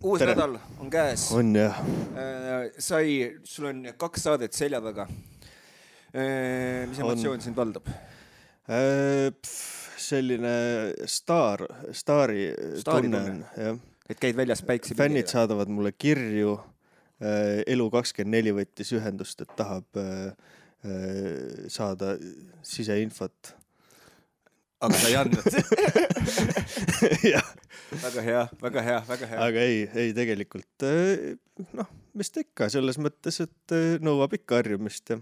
Uus nädal on käes. On jah. Sul on 2 saadet selja taga. Mis emotsioon sind valdab? Selline staari tunne on. Et käid väljas päikse fännid saadavad mulle kirju. Elu24 võttis ühendust, et tahab saada siseinfot. Aga sa ei andnud. Väga hea. Aga ei tegelikult, mis ta ikka selles mõttes, et nõuab ikka harjumist ja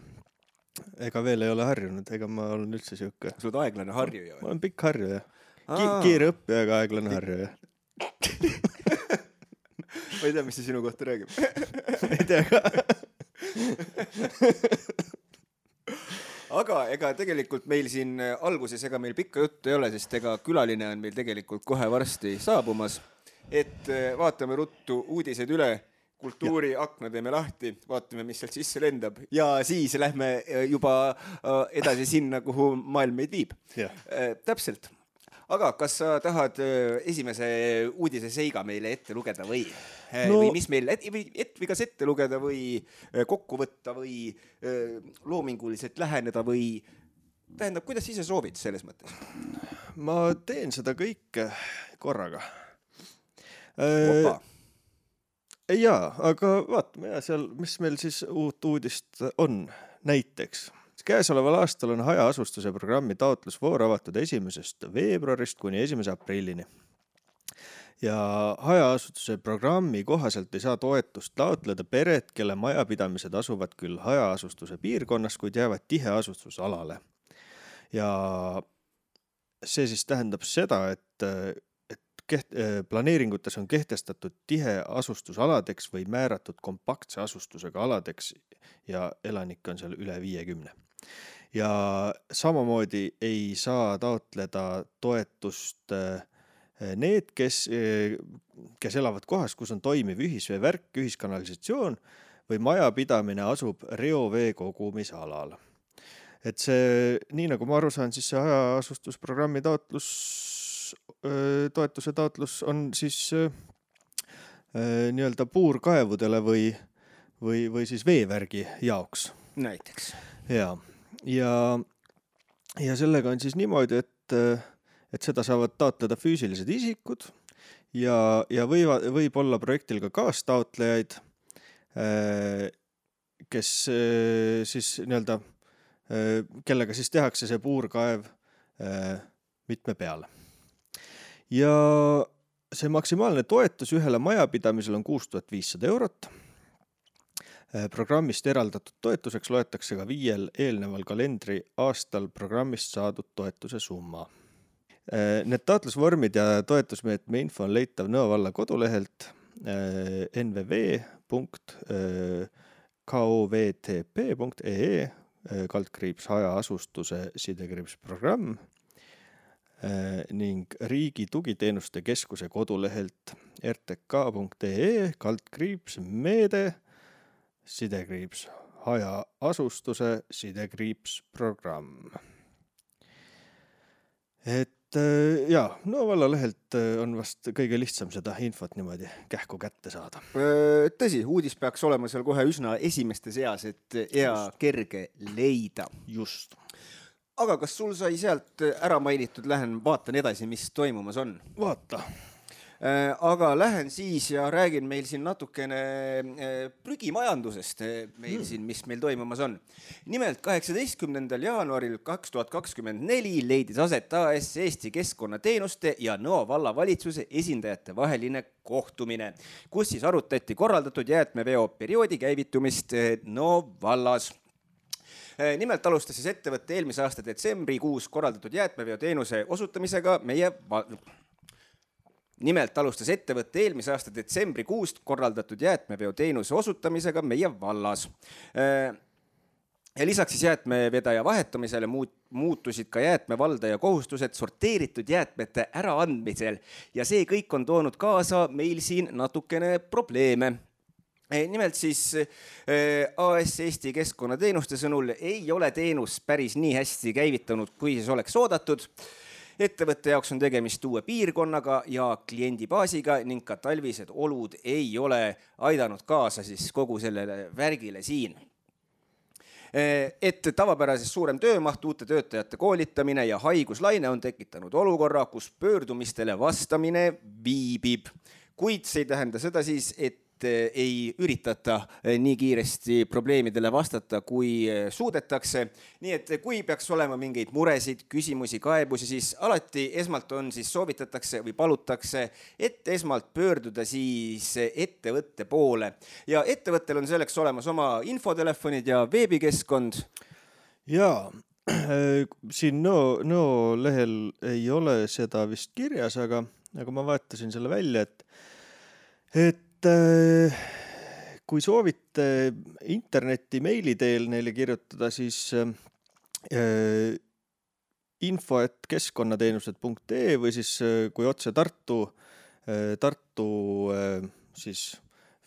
ega veel ei ole harjunud, ega ma olen üldse siuke. Sa oled aeglane harjuja? Ma olen pikk harjuja. Kiire õppija, aga aeglane harjuja. Ma ei tea, mis see sinu kohta räägib. Ei tea ka. Aga ega tegelikult meil siin alguses ega meil pikka juttu ei ole, sest ega külaline on meil tegelikult kohe varsti saabumas. Et vaatame ruttu uudised üle, kultuuriakna teeme lahti, vaatame, mis sealt sisse lendab ja siis lähme juba edasi sinna, kuhu maailm meid viib. Täpselt. Aga kas sa tahad esimese uudise seiga meile ette lugeda või mis meil kas ette lugeda või kokku võtta või loominguliselt läheneda või tähendab, kuidas ise soovid selles mõttes? Ma teen seda kõike korraga. Opa. Jaa, aga vaatame seal, mis meil siis uut uudist on näiteks. Käesoleval aastal on hajaasustuse programmi taotlusvoor avatud 1. veebruarist kuni 1. aprillini. Ja hajaasustuse programmi kohaselt ei saa toetust taotleda pered, kelle majapidamised asuvad küll hajaasustuse piirkonnas, kuid jäävad tiheasustusalale. Ja see siis tähendab seda, et planeeringutes on kehtestatud tiheasustusaladeks või määratud kompaktse asustusega aladeks ja elanikke on seal üle 50. Ja samamoodi ei saa taotleda toetust need, kes elavad kohas, kus on toimiv ühisveevärk, ühiskanalisatsioon või majapidamine asub reovee kogumisalal. Et see, nii nagu ma aru saan, siis see hajaasustusprogrammi toetuse taotlus on siis nii-öelda puurkaevudele või siis veevärgi jaoks. Näiteks. Ja sellega on siis niimoodi, et seda saavad taotleda füüsilised isikud ja võib olla projektil ka kaastaotlejaid, kes siis nii-öelda, kellega siis tehakse see puurkaev mitme peale. Ja see maksimaalne toetus ühele majapidamisel on 6500 eurot. Programmist eraldatud toetuseks loetakse ka 5 eelneval kalendri aastal programmist saadud toetuse summa. Need taotlusvormid ja toetusmeetme info on leitav Nõo valla kodulehelt nvv.kovtp.ee /hajaasustuse /programm ning Riigi Tugiteenuste Keskuse kodulehelt rtk.ee /meede hajaasustuse /programm. Et Nõo valla lehelt on vast kõige lihtsam seda infot niimoodi kähku kätte saada. Tõsi, uudis peaks olema seal kohe üsna esimeste seas, et hea kerge leida. Just. Aga kas sul sai sealt ära mainitud, lähen vaatan edasi, mis toimumas on? Vaata. Aga lähen siis ja räägin meil siin natukene prügimajandusest, mis meil toimumas on. Nimelt 18. jaanuaril 2024 leidis aset AS Eesti Keskkonnateenuste ja Nõo valla valitsuse esindajate vaheline kohtumine, kus siis arutati korraldatud jäätmeveo perioodi käivitumist Nõo vallas. Nimelt alustas siis ettevõtte eelmise aasta detsembrikuus korraldatud jäätmeveo teenuse osutamisega meie vallas. Ja lisaks siis jäätmevedaja vahetamisele muutusid ka jäätmevaldaja kohustused sorteeritud jäätmete äraandmisel ja see kõik on toonud kaasa meil siin natukene probleeme. Nimelt siis AS Eesti Keskkonnateenuste sõnul ei ole teenus päris nii hästi käivitanud, kui siis oleks oodatud. Ettevõtte jaoks on tegemist uue piirkonnaga ja kliendibaasiga ning ka talvised olud ei ole aidanud kaasa siis kogu sellele värgile siin. Et tavapärases suurem töömaht, uute töötajate koolitamine ja haiguslaine on tekitanud olukorra, kus pöördumistele vastamine viibib. Kuid see ei tähenda seda siis, et ei üritata nii kiiresti probleemidele vastata, kui suudetakse. Nii et kui peaks olema mingeid muresid, küsimusi, kaebusi, siis alati esmalt on siis soovitatakse või palutakse, et esmalt pöörduda siis ettevõtte poole. Ja ettevõttel on selleks olemas oma infotelefonid ja veebikeskkond. Jaa, siin Nõo lehel ei ole seda vist kirjas, aga ma vaatasin selle välja, et kui soovite interneti meili teel neile kirjutada, siis info@keskkonnateenused.ee või siis kui otse Tartu siis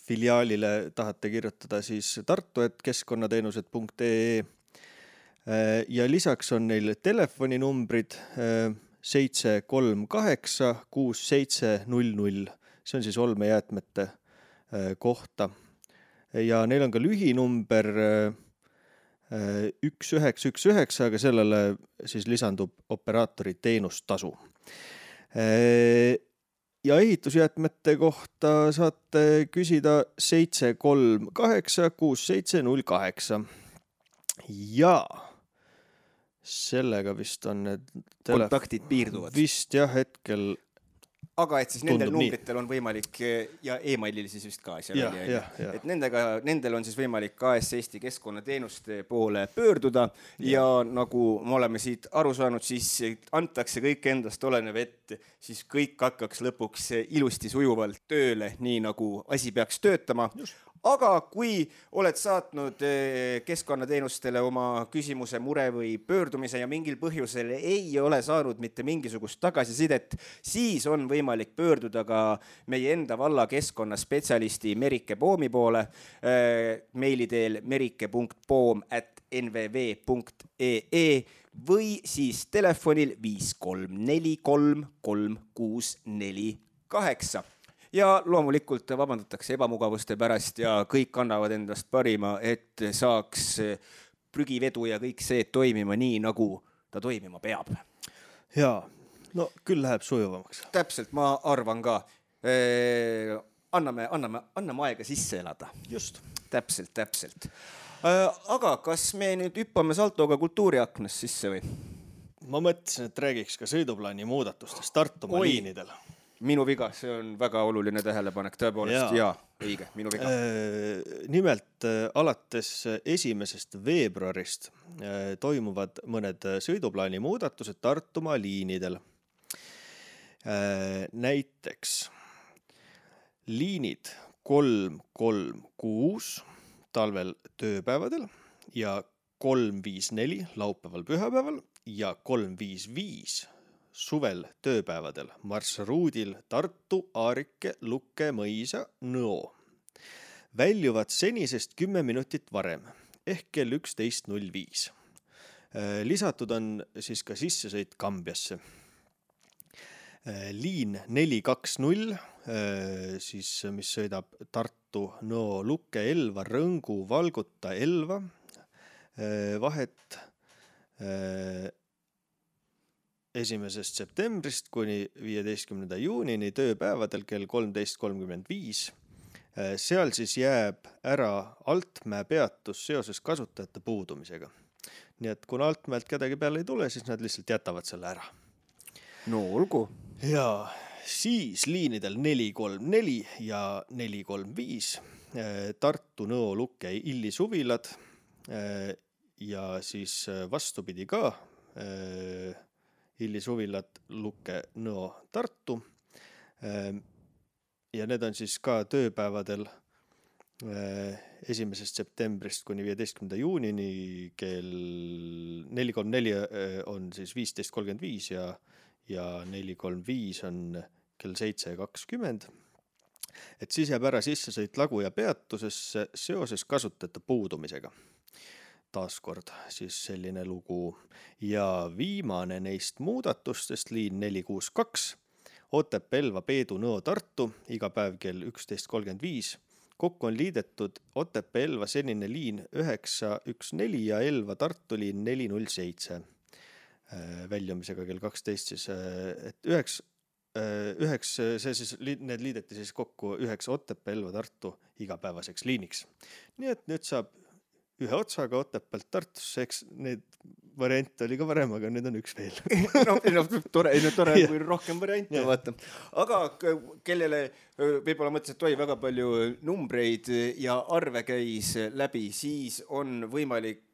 filiaalile tahate kirjutada, siis tartu@keskkonnateenused.ee ja lisaks on neil telefoninumbrid 738 6700. See on siis olmejäätmete kohta ja neil on ka lühinumber 1919, aga sellele siis lisandub operaatori teenustasu. Ja ehitusjäätmete kohta saate küsida 738 6708 ja sellega vist on need kontaktid piirduvad. Vist jah, hetkel. Aga et siis nendel numbritel on võimalik ja e-mailil siis vist ka asja välja. Et nendel on siis võimalik KS Eesti keskkonnateenuste poole pöörduda ja nagu me oleme siit aru saanud, siis antakse kõik endast olenev, et siis kõik hakkaks lõpuks ilusti sujuvalt tööle, nii nagu asi peaks töötama. Aga kui oled saatnud keskkonnateenustele oma küsimuse, mure või pöördumise ja mingil põhjusel ei ole saanud mitte mingisugust tagasisidet, siis on võimalik pöörduda ka meie enda valla keskkonnaspetsialisti Merike Poomi poole meili teel merike.poom@nvv.ee või siis telefonil 5343 3648. Ja loomulikult vabandatakse ebamugavuste pärast ja kõik annavad endast parima, et saaks prügivedu ja kõik see toimima nii, nagu ta toimima peab. Jaa, no küll läheb sujuvamaks. Täpselt, ma arvan ka. Anname aega sisse elada. Just. Täpselt. Aga kas me nüüd hüppame saltoga kultuuriaknast sisse või? Ma mõtlesin, et räägiks ka sõiduplaani muudatustest Tartumaa liinidel. Minu viga, see on väga oluline tähelepanek, tõepoolest, jaa, õige, minu viga. Nimelt alates 1. veebruarist toimuvad mõned sõiduplaani muudatused Tartumaa liinidel. Näiteks liinid 336 talvel tööpäevadel ja 354 laupäeval pühapäeval ja 355 suvel tööpäevadel marsruudil Tartu, Aarike, Lukke, Mõisa, Nõo. Väljuvad senisest 10 minutit varem ehk kell 11.05. Lisatud on siis ka sissesõit Kambjasse. Liin 420, siis, mis sõidab Tartu, Nõo, Lukke, Elva, Rõngu, Valguta, Elva, vahet 1. septembrist kuni 15. juunini tööpäevadel kell 13.35. Seal siis jääb ära Altmäe peatus seoses kasutajate puudumisega. Nii et kuna Altmäelt kedagi peale ei tule, siis nad lihtsalt jätavad selle ära. No olgu. Ja siis liinidel 434 ja 435 Tartu, Nõo, Lukke, Illi suvilad ja siis vastupidi ka Illi suvilad, Lukke, Nõo, Tartu. Ja need on siis ka tööpäevadel 1. septembrist kuni 15. juunini kell 434 on siis 15.35 ja 435 on kell 7.20. Et siis jääb ära sissesõit Lagu ja peatusesse seoses kasutajate puudumisega. taaskord siis selline lugu. Ja viimane neist muudatustest, liin 462, Otepää, Elva, Peedu, Nõo, Tartu, iga päev kell 11.35. Kokku on liidetud Otepää, Elva senine liin 914 ja Elva, Tartu liin 407. Väljumisega kell 12 siis, et need liideti siis kokku 9 Otepää, Elva, Tartu igapäevaseks liiniks. Nii et nüüd saab ühe otsaga Otepäält Tartusse, eks need variante oli ka varem, aga nüüd on üks veel. Tore, kui rohkem variante vaata. Aga kellele võib-olla mõttes, et väga palju numbreid ja arve käis läbi, siis on võimalik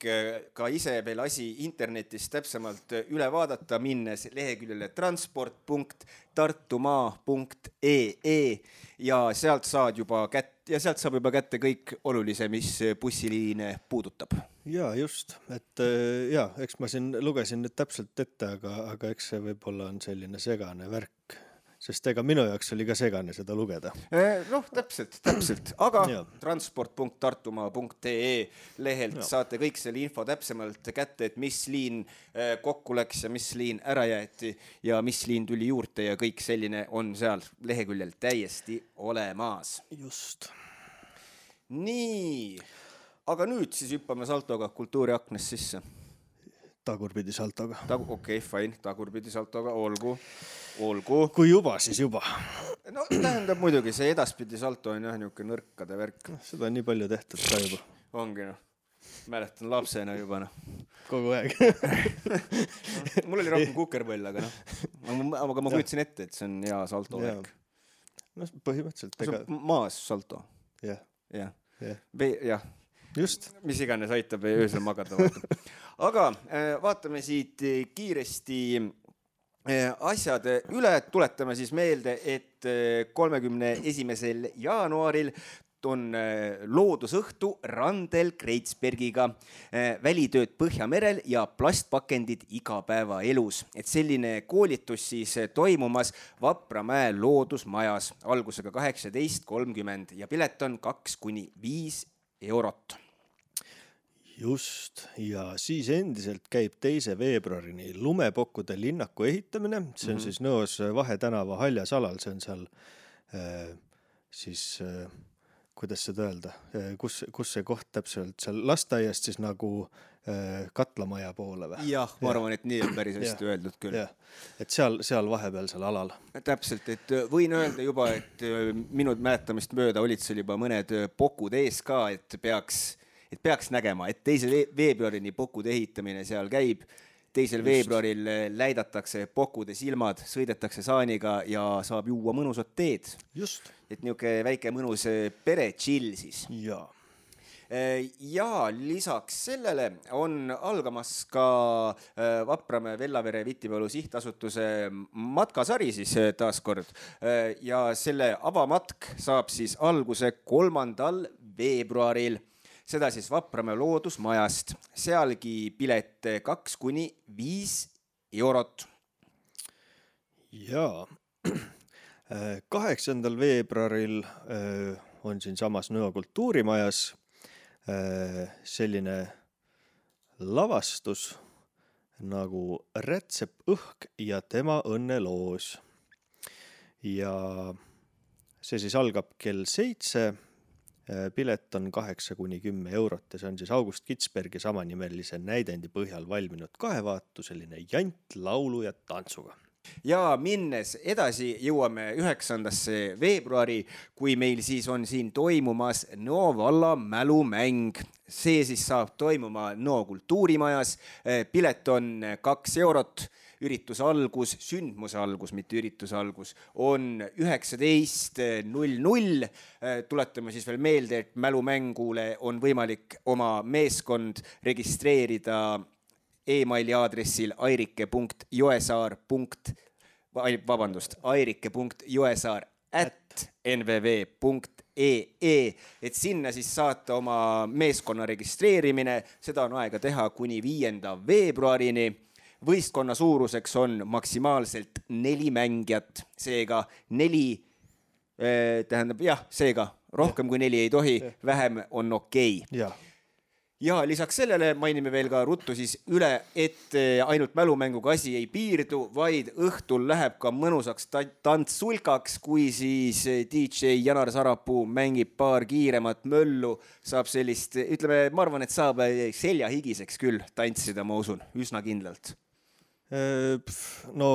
ka ise veel asi internetis täpsemalt üle vaadata, minnes leheküljele transport.tartumaa.ee ja sealt saab juba kätte kõik olulise, mis bussiliine puudutab. Ja just, et eks ma siin lugesin nüüd täpselt ette, aga eks see võib-olla on selline segane värk, sest ega minu jaoks oli ka segane seda lugeda. Täpselt, aga transport.tartumaa.ee lehelt saate kõik selle info täpsemalt kätte, et mis liin kokku läks ja mis liin ära jäeti ja mis liin tuli juurde ja kõik selline on seal leheküljel täiesti olemas. Just. Nii, aga nüüd siis hüppame saltoga kultuuriaknest sisse. Tagurpidi saltoga. Okei, fine, tagurpidi saltoga, olgu. Kui juba, siis juba. No tähendab muidugi, see edaspidi salto on jah niuke nõrkade värk. Seda on nii palju tehtud ka juba. Ongi mäletan lapsena juba Kogu aeg. Mul oli rohkem kukerpõll, aga aga ma kujutsin ette, et see on hea salto värk. No põhimõtteliselt. See on maas salto. Jah. Just. Mis iganes aitab öösel magada. Aga vaatame siit kiiresti asjad üle. Tuletame siis meelde, et 31. jaanuaril on loodusõhtu Randel Kreitsbergiga, välitööd Põhjamerel ja plastpakendid igapäevaelus. Et selline koolitus siis toimumas Vapramäe loodusmajas algusega 18.30 ja pilet on 2–5 eurot. Just, ja siis endiselt käib 2. veebruarini lumepokkude linnaku ehitamine. See on siis Nõos Vahetänava Haljasalal, see on seal siis, kuidas seda öelda, kus see koht täpselt seal lasteaiast siis nagu katlamaja poole või? Jah, ma arvan, et nii on päris hästi öeldud küll. Et seal vahepealsel alal. Täpselt, et võin öelda juba, et minu mäletamist mööda olid seal juba mõned pokud ees ka, et peaks nägema, et 2. veebruarini pokude ehitamine seal käib. 2. veebruaril läidatakse pokude silmad, sõidetakse saaniga ja saab juua mõnusat teed. Just. Et niuke väike mõnus pere chill siis. Jaa. Ja lisaks sellele on algamas ka Vapramäe Vellavere Vitipalu sihtasutuse matkasari siis taaskord. Ja selle avamatk saab siis alguse 3. veebruaril. Seda siis Vapramäe loodusmajast. Sealgi pilet 2–5 eurot. Jaa. 8. veebruaril on siin samas Nõo kultuurimajas selline lavastus nagu Rätsep õhk ja tema õnneloos. Ja see siis algab kell 7. Pilet on 8–10 eurot ja see on siis August Kitsbergi samanimelise näidendi põhjal valminud kahevaatu, selline jant laulu ja tantsuga. Ja minnes edasi jõuame 9. veebruari, kui meil siis on siin toimumas Nõo valla mälumäng. See siis saab toimuma Nõo kultuurimajas. Pilet on 2 eurot. Ürituse algus, sündmuse algus, mitte ürituse algus, on 19.00. Tuletame siis veel meelde, et mälumängule on võimalik oma meeskond registreerida e-maili aadressil airike.joesaar@nvv.ee, et sinna siis saata oma meeskonna registreerimine. Seda on aega teha kuni 5. veebruarini. Võistkonna suuruseks on maksimaalselt 4 mängijat, seega 4, seega rohkem kui 4 ei tohi, vähem on okei. Ja lisaks sellele mainime veel ka ruttu siis üle, et ainult mälumänguga asi ei piirdu, vaid õhtul läheb ka mõnusaks tantsulkaks, kui siis DJ Janar Sarapuu mängib paar kiiremat möllu, saab sellist, ütleme, ma arvan, et saab seljahigiseks küll tantsida, ma usun, üsna kindlalt. No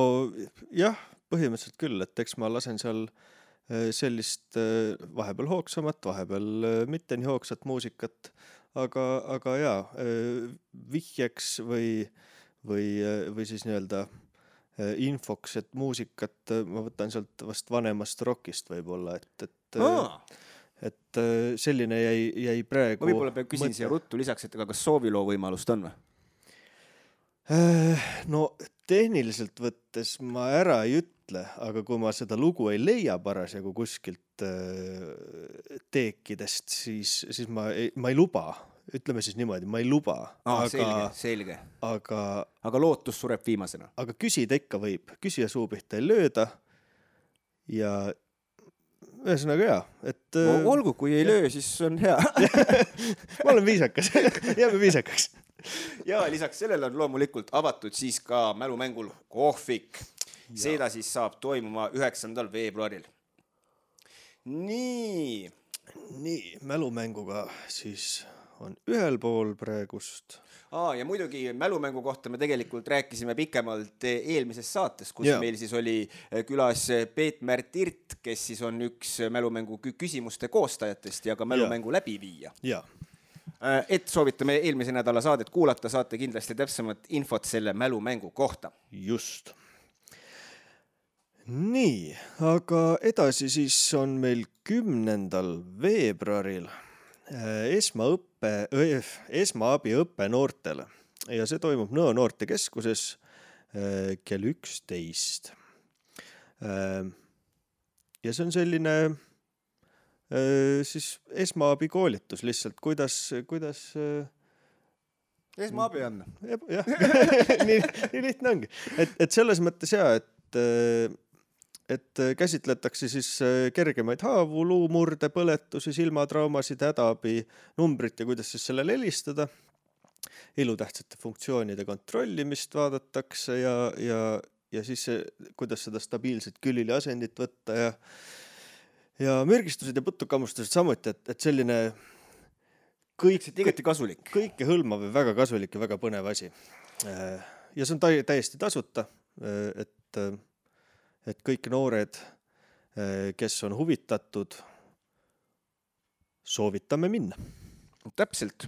jah, põhimõtteliselt küll, et eks ma lasen seal sellist vahepeal hoogsamat, vahepeal mitte nii hoogsat muusikat, aga jaa, vihjeks või siis nii-öelda infoks, et muusikat ma võtan sealt vast vanemast rockist võib-olla, et selline jäi praegu... Ma võib-olla peab küsin siia ruttu lisaks, et kas sooviloo võimalust on või? No tehniliselt võttes ma ära ei ütle, aga kui ma seda lugu ei leia parasjagu kuskilt teekidest, siis ma ei luba. Ütleme siis niimoodi, ma ei luba. Selge. Aga lootus sureb viimasena. Aga küsida ikka võib. Küsija suu pihta ei lööda. Ja ühesõnaga hea. Et, olgu, kui ei löö, siis on hea. Ma olen viisakas. Jääme viisakaks. Ja lisaks sellele on loomulikult avatud siis ka mälumängul kohvik. Seda siis saab toimuma 9. veebruaril. Nii, mälumänguga siis on ühel pool praegust. Ja muidugi mälumängu kohta me tegelikult rääkisime pikemalt eelmises saates, kus meil siis oli külas Peet-Märt Irt, kes siis on üks mälumängu küsimuste koostajatest ja ka mälumängu läbiviija. Ja. Et soovitame eelmise nädala saadet kuulata, saate kindlasti täpsemat infot selle mälumängu kohta. Just. Nii, aga edasi siis on meil 10. veebruaril esmaabiõppe noortele ja see toimub Nõo noortekeskuses kell 11. Ja see on selline siis esmaabikoolitus lihtsalt, kuidas esmaabi on. Jah, nii lihtne ongi. Et selles mõttes et käsitletakse siis kergemaid haavu, luumurde, põletusi, silmatraumasid, hädaabi numbrit ja kuidas siis sellele helistada. Elutähtsate funktsioonide kontrollimist vaadatakse ja siis kuidas seda stabiilset külili asendit võtta ja mürgistused ja putukammustused samuti, et selline igati kasulik. Kõike hõlmav ja väga kasulik ja väga põnev asi. Ja see on täiesti tasuta, et kõik noored, kes on huvitatud, soovitame minna. Täpselt.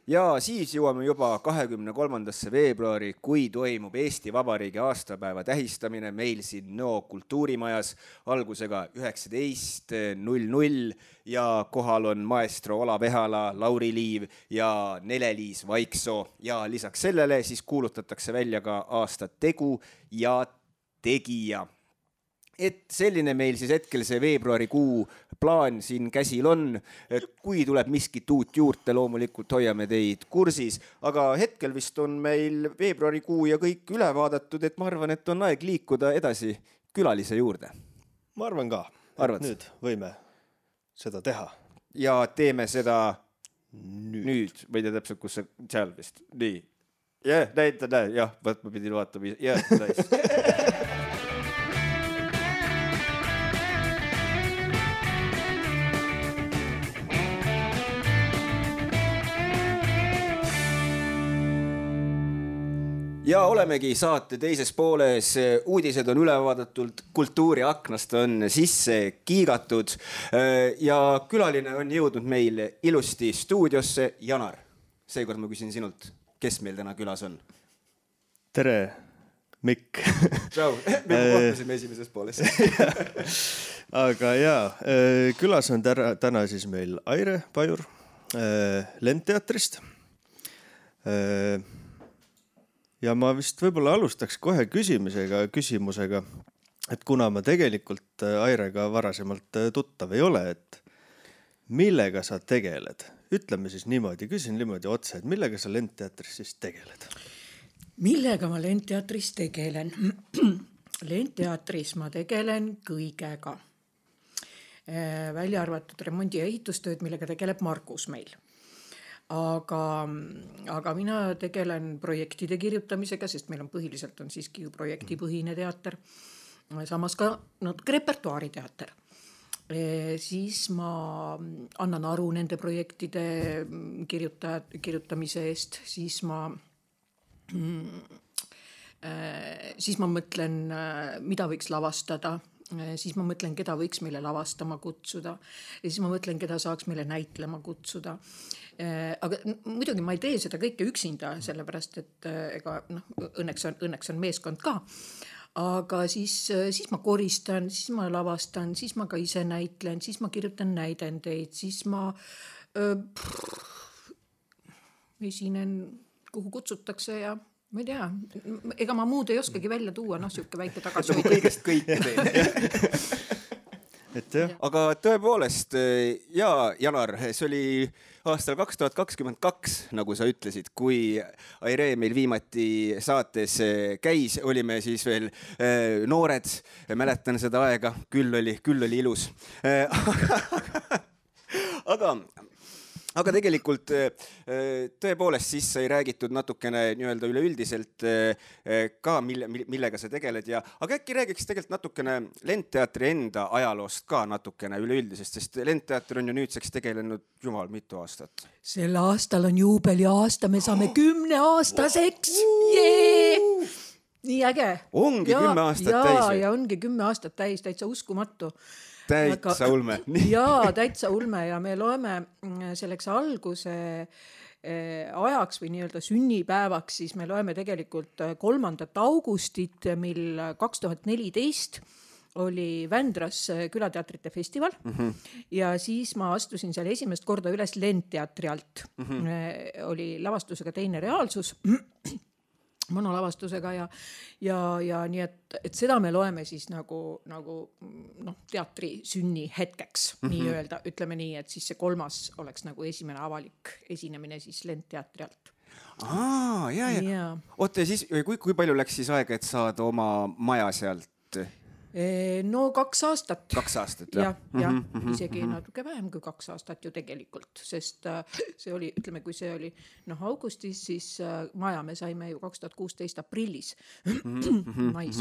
Ja siis jõuame juba 23. veebruari, kui toimub Eesti Vabariigi aastapäeva tähistamine meil siin Nõo kultuurimajas algusega 19:00 ja kohal on maestro Olav Ehala, Lauri Liiv ja Nele-Liis Vaiksoo ja lisaks sellele siis kuulutatakse välja ka aasta tegu ja tegija. Et selline meil siis hetkel see veebruarikuu plaan siin käsil on, et kui tuleb miskit uut juurde, loomulikult hoiame teid kursis, aga hetkel vist on meil veebruarikuu ja kõik üle vaadatud, et ma arvan, et on aeg liikuda edasi külalise juurde. Ma arvan ka, et nüüd võime seda teha. Ja teeme seda nüüd. Või te täpselt, kus see seal vist. Nii. Jah, ma pidin vaatama. Nice. Ja olemegi saate teises pooles, uudised on ülevaadatud, kultuuriaknast on sisse kiigatud ja külaline on jõudnud meil ilusti stuudiosse. Janar, seekord ma küsin sinult, kes meil täna külas on? Tere, Mikk. Tšau, me kohtusime esimeses pooles. Aga külas on täna siis meil Aire Pajur Lendteatrist. Ja ma vist võib-olla alustaks kohe küsimusega, et kuna ma tegelikult Airega varasemalt tuttav ei ole, et millega sa tegeled? Ütleme siis niimoodi, küsin niimoodi otse, et millega sa Lendteatris siis tegeled? Millega ma Lendteatris tegelen? Lendteatris ma tegelen kõigega. Välja arvatud remondi- ja ehitustööd, millega tegeleb Margus meil. aga mina tegelen projektide kirjutamisega, sest meil on põhiliselt on siiski ju projektipõhine teater, samas ka natuke repertuaariteater. Siis ma annan aru nende projektide kirjutamise eest, siis ma mõtlen, mida võiks lavastada, siis ma mõtlen, keda võiks meile lavastama kutsuda ja siis ma mõtlen, keda saaks meile näitlema kutsuda. Aga muidugi ma ei tee seda kõike üksinda, sellepärast et ega õnneks on meeskond ka. Aga siis ma koristan, siis ma lavastan, siis ma ka ise näitlen, siis ma kirjutan näidendeid, siis ma esinen, kuhu kutsutakse ja ma ei tea, ega ma muud ei oskagi välja tuua, siuke väike tagasi. Kõigest kõike teen. Aga tõepoolest, Janar, see oli aastal 2022, nagu sa ütlesid, kui Aire meil viimati saates käis, olime siis veel noored, mäletan seda aega, küll oli ilus. Aga tegelikult tõepoolest siis sai räägitud natukene nii-öelda üleüldiselt ka, millega sa tegeled aga äkki räägiks tegelikult natukene Lendteatri enda ajaloost ka natukene üleüldisest, sest Lendteater on ju nüüdseks tegelenud jumal mitu aastat. Sel aastal on juubeliaasta, me saame 10-aastaseks. Nii äge. Ongi 10 aastat täis. Ja ongi 10 aastat täis, täitsa uskumatu. Täitsa ulme. Jaa, täitsa ulme ja me loeme selleks alguse ajaks või nii-öelda sünnipäevaks, siis me loeme tegelikult 3. augustit, mil 2014 oli Vändras külateatrite festival ja siis ma astusin seal esimest korda üles Lendteatri alt. Oli lavastusega Teine reaalsus. Monolavastusega ja nii, et seda me loeme siis nagu teatri sünni hetkeks, nii öelda, ütleme nii, et siis see 3. oleks nagu esimene avalik esinemine siis Lendteatri alt. Ja. Oota, siis kui palju läks siis aega, et saada oma maja sealt? No 2 aastat. 2 aastat, jah? Ja, isegi natuke vähem kui 2 aastat ju tegelikult, sest see oli, ütleme, kui see oli augustis, siis maja me saime ju 2016 aprillis. Mais.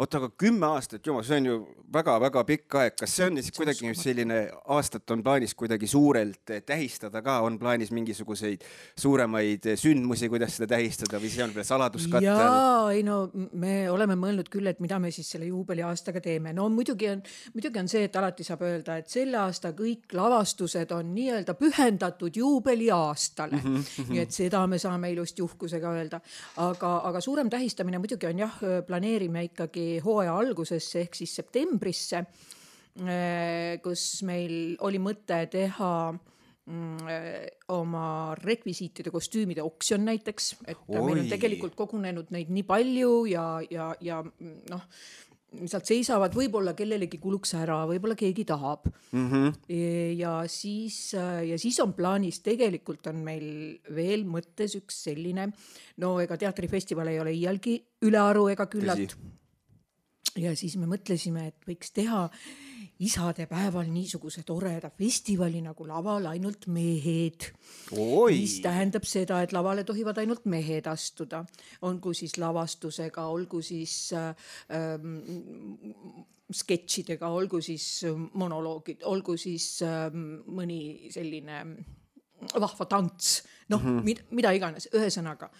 Oota, aga 10 aastat, jumal, see on ju väga-väga pikk aeg. Kas see on siis kuidagi selline aastat on plaanis kuidagi suurelt tähistada ka? On plaanis mingisuguseid suuremaid sündmusi, kuidas seda tähistada või see on veel saladuskattel? Jaa, me oleme mõelnud küll, et mida me siis selle juubeliaastaga teeme. No muidugi on see, et alati saab öelda, et selle aasta kõik lavastused on nii-öelda pühendatud juubeliaastale. Nii et seda me saame ilusti uhkusega öelda. Aga suurem tähistamine muidugi on planeerime ikkagi hooaja algusesse ehk siis septembrisse, kus meil oli mõte teha oma rekvisiitide kostüümide oksjon näiteks, et meil on tegelikult kogunenud neid nii palju ja sealt seisavad, võib-olla kellelegi kuluks ära, võib-olla keegi tahab. Ja siis on plaanis, tegelikult on meil veel mõttes üks selline, ega teatrifestival ei ole iialgi ülearu ega küllalt. Ja siis me mõtlesime, et võiks teha isade päeval niisuguse toreda festivali nagu laval ainult mehed. Mis tähendab seda, et lavale tohivad ainult mehed astuda. Olgu siis lavastusega, olgu siis sketšidega, olgu siis monoloogid, olgu siis mõni selline vahva tants. Mida iganes, ühesõnaga.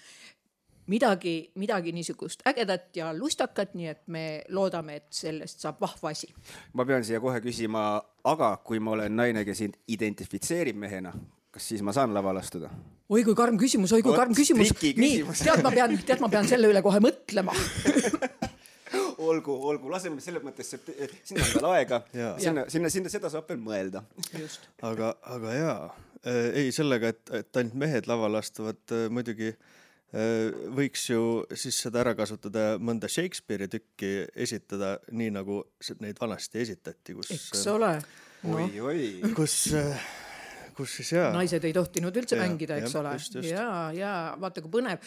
Midagi niisugust ägedat ja lustakat, nii et me loodame, et sellest saab vahva asi. Ma pean siia kohe küsima, aga kui ma olen naine, kes identifitseerib mehena, kas siis ma saan laval astuda? Oi kui karm küsimus. Nii, tead ma pean selle üle kohe mõtlema. Olgu, laseme selles mõttes, sinna on veel aega, sinna seda saab veel mõelda. Just. Aga ei sellega, et ainult mehed laval astuvad muidugi võiks ju siis seda ära kasutada mõnda Shakespeare'i tükki esitada nii nagu neid vanasti esitati, eks ole. Kus siis naised ei tohtinud üldse mängida, eks ole. Just. Ja vaata kui põnev,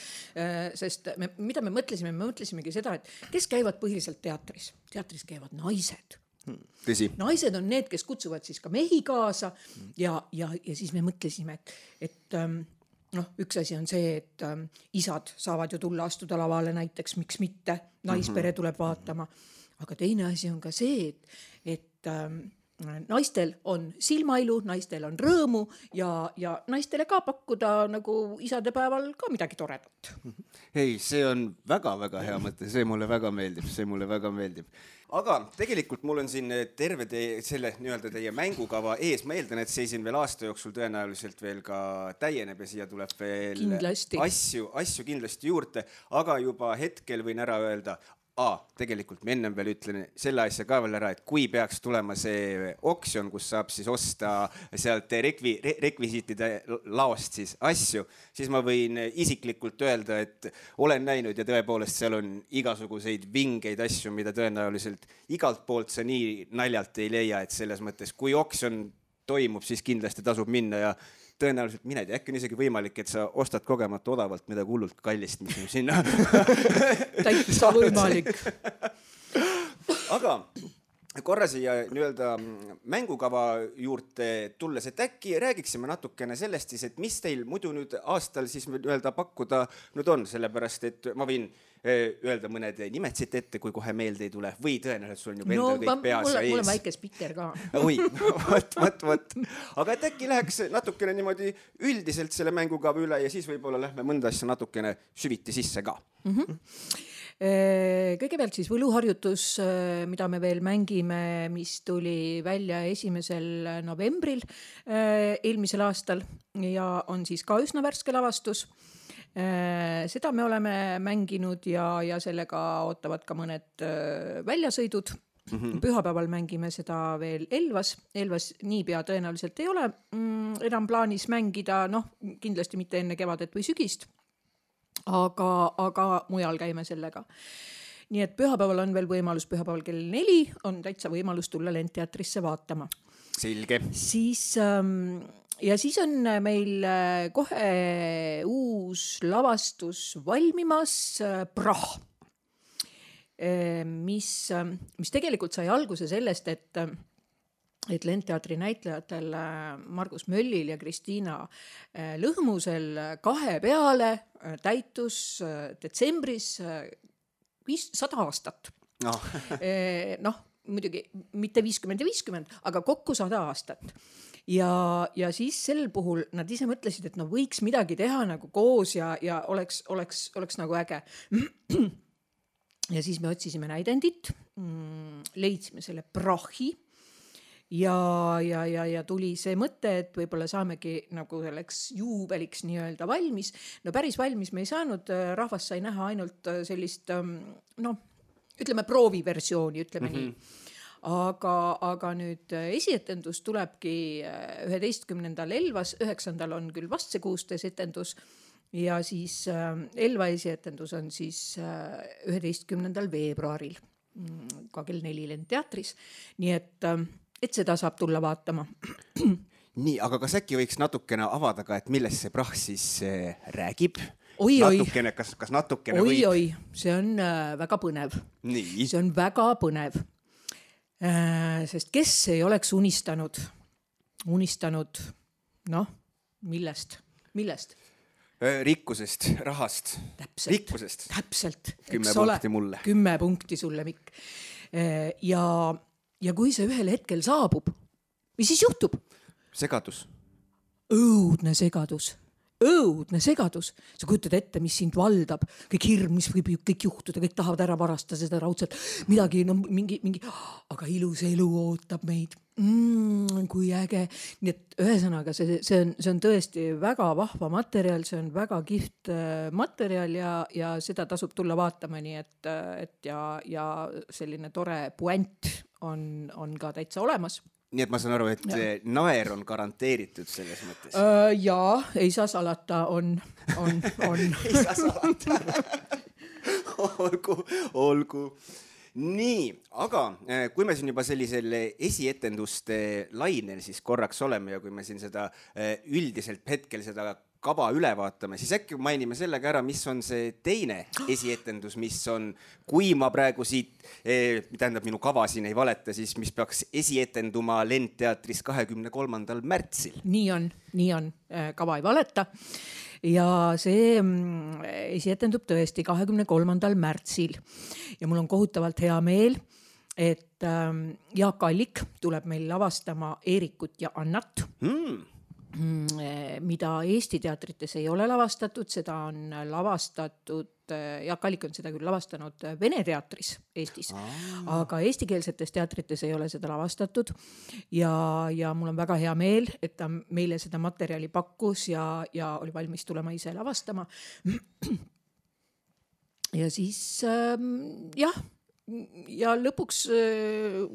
sest mida me mõtlesimegi seda, et kes käivad põhiliselt teatris? Teatris käivad naised. Tõsi. Naised on need, kes kutsuvad siis ka mehi kaasa ja siis me mõtlesime, et üks asi on see, et isad saavad ju tulla astuda lavale näiteks, miks mitte, naispere tuleb vaatama. Aga teine asi on ka see, et naistel on silmailu, naistel on rõõmu ja naistele ka pakkuda nagu isadepäeval ka midagi toredat. Ei, see on väga-väga hea mõte, see mulle väga meeldib. Aga tegelikult mul on siin terve teie mängukava ees. Ma eeldan, et see siin veel aasta jooksul tõenäoliselt veel ka täieneb ja siia tuleb veel kindlasti. asju kindlasti juurde, aga juba hetkel võin ära öelda, tegelikult ma ennem veel ütlen selle asja ka veel ära, et kui peaks tulema see oksjon, kus saab siis osta sealt rekvisiitide laost siis asju, siis ma võin isiklikult öelda, et olen näinud ja tõepoolest seal on igasuguseid vingeid asju, mida tõenäoliselt igalt poolt sa nii naljalt ei leia, et selles mõttes, kui oksjon toimub, siis kindlasti tasub minna ja tõenäoliselt mined ja äkki on isegi võimalik, et sa ostad kogemata odavalt midagi hullult kallist, mis on sinna. Täitsa võimalik. Aga korra siia nii-öelda mängukava juurde tulles, et äkki räägiksime natukene sellest siis, et mis teil muidu nüüd aastal siis nii-öelda pakkuda nüüd on, sellepärast et ma võin öelda mõned nimed siit ette, kui kohe meelde ei tule või tõenäoliselt sul on juba endal kõik peas ja ees. Mul on väike spikker ka. Oi, võt. Aga et äkki läheks natukene niimoodi üldiselt selle mängukava üle ja siis võib-olla lähme mõnda asja natukene süviti sisse ka. Kõigepealt siis võluharjutus, mida me veel mängime, mis tuli välja 1. novembril eelmisel aastal ja on siis ka üsna värske lavastus. Seda me oleme mänginud ja sellega ootavad ka mõned väljasõidud. Pühapäeval mängime seda veel Elvas niipea tõenäoliselt ei ole enam plaanis mängida, kindlasti mitte enne kevadet või sügist, aga mujal käime sellega. Nii et pühapäeval on veel võimalus, pühapäeval kell 4 on täitsa võimalus tulla Lendteatrisse vaatama. Selge. Ja siis on meil kohe uus lavastus valmimas, Prah, mis tegelikult sai alguse sellest, et Lendteatri näitlejatel Margus Möllil ja Kristiina Lõhmusel 2 peale täitus detsembris 100 aastat. Muidugi mitte 50 ja 50, aga kokku 100 aastat. Ja siis sel puhul nad ise mõtlesid, et võiks midagi teha nagu koos ja oleks nagu äge. Ja siis me otsisime näidendit, leidsime selle Prahi ja tuli see mõte, et võib-olla saamegi nagu selleks juubeliks nii-öelda valmis. Päris valmis me ei saanud, rahvas sai näha ainult sellist, ütleme prooviversiooni, ütleme nii. Aga nüüd esietendus tulebki 11. Elvas, 9. on küll vast see 16 etendus ja siis Elva esietendus on siis 11. veebruaril ka kell 4 Lendteatris. Nii et seda saab tulla vaatama. Nii, aga kas äkki võiks natukene avada ka, et millest see Prah siis räägib? Natukene, kas natukene võib? Oi, see on väga põnev. Nii. See on väga põnev. Sest kes ei oleks unistanud, millest? Rikkusest, rahast, rikkusest. Täpselt. 10 punkti mulle. 10 punkti sulle, Mikk. Ja kui see ühel hetkel saabub, mis siis juhtub? Segadus. Õudne segadus. Sa kujutad ette, mis sind valdab, kõik hirm, mis võib kõik juhtuda, kõik tahavad ära varastada seda raudselt, midagi, mingi, aga ilus elu ootab meid. Kui äge. Nii et ühesõnaga, see on tõesti väga vahva materjal, see on väga kihvt materjal ja seda tasub tulla vaatama, nii et ja selline tore puent on ka täitsa olemas. Nii et ma saan aru, et naer on garanteeritud selles mõttes. Jaa, ei saa salata, on. Ei saa salata. Olgu. Nii, aga kui me siin juba sellisel esietenduste lainel siis korraks oleme ja kui me siin seda üldiselt hetkel seda kava üle vaatame, siis äkki mainime sellega ära, mis on see teine esietendus, mis on, kui ma praegu siit, tähendab minu kava siin ei valeta, siis mis peaks esietenduma Lendteatris 23. märtsil. Nii on, kava ei valeta. Ja see esietendub tõesti 23. märtsil. Ja mul on kohutavalt hea meel, et Jaak Allik tuleb meil lavastama Eerikut ja Annat. Mida Eesti teatrites ei ole lavastatud, seda on lavastatud, Jaak Allik on seda küll lavastanud Vene teatris Eestis, aga eestikeelsetes teatrites ei ole seda lavastatud ja mul on väga hea meel, et ta meile seda materjali pakkus ja oli valmis tulema ise lavastama. Ja siis ja lõpuks,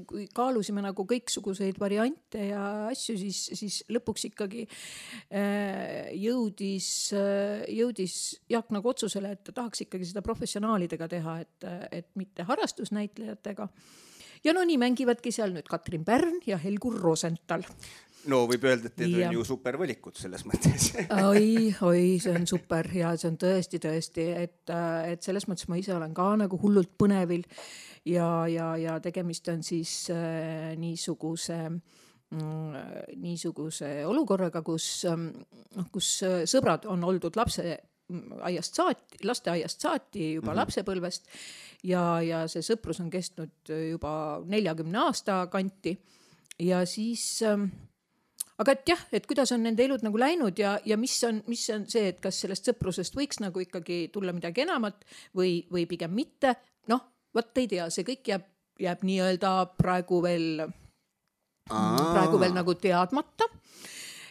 kui kaalusime nagu kõiksuguseid variante ja asju, siis lõpuks ikkagi jõudis Jaak nagu otsusele, et ta tahaks ikkagi seda professionaalidega teha, et mitte harrastusnäitlejatega. Ja nii mängivadki seal nüüd Katrin Pärn ja Helgur Rosenthal. No võib öelda, et need on ju super valikud selles mõttes. Oi, see on super ja see on tõesti, et selles mõttes ma ise olen ka nagu hullult põnevil ja tegemist on siis niisuguse olukorraga, kus sõbrad on oldud lasteaiast saati juba lapsepõlvest ja see sõprus on kestnud juba 40 aasta kanti ja siis aga et jah, et kuidas on nende elud nagu läinud ja mis on see, et kas sellest sõprusest võiks nagu ikkagi tulla midagi enamat või pigem mitte. Võt ei tea, see kõik jääb nii-öelda praegu veel nagu teadmata.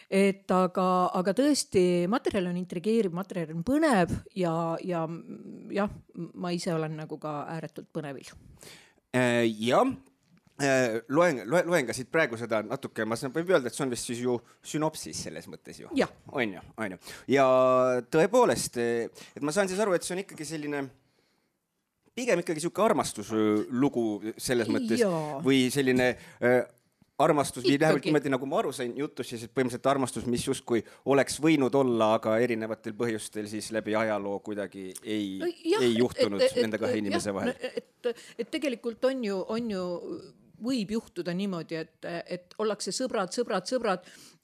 Et aga tõesti, materjal on intrigeeriv, materjal on põnev ja ma ise olen nagu ka ääretult põnevil. Jah. Loen ka siit praegu seda natuke, ma võin öelda, et see on vist siis ju sünopsis selles mõttes ju. Ja. On ju. Ja tõepoolest, et ma saan siis aru, et see on ikkagi selline, pigem ikkagi siuke armastuslugu selles mõttes või selline armastus, või läheb nagu ma aru sain jutus, siis põhimõtteliselt armastus, mis justkui oleks võinud olla, aga erinevatel põhjustel siis läbi ajaloo kuidagi ei juhtunud nende kahe inimese vahel. Et tegelikult on ju võib juhtuda niimoodi, et ollakse sõbrad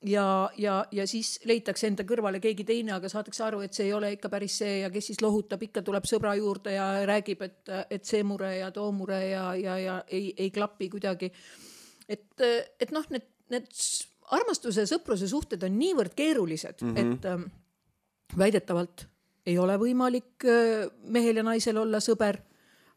ja siis leitakse enda kõrvale keegi teine, aga saadakse aru, et see ei ole ikka päris see ja kes siis lohutab, ikka tuleb sõbra juurde ja räägib, et see mure ja too mure ja ei klapi kuidagi. Et need armastuse ja sõpruse suhted on niivõrd keerulised, et väidetavalt ei ole võimalik mehel ja naisel olla sõber,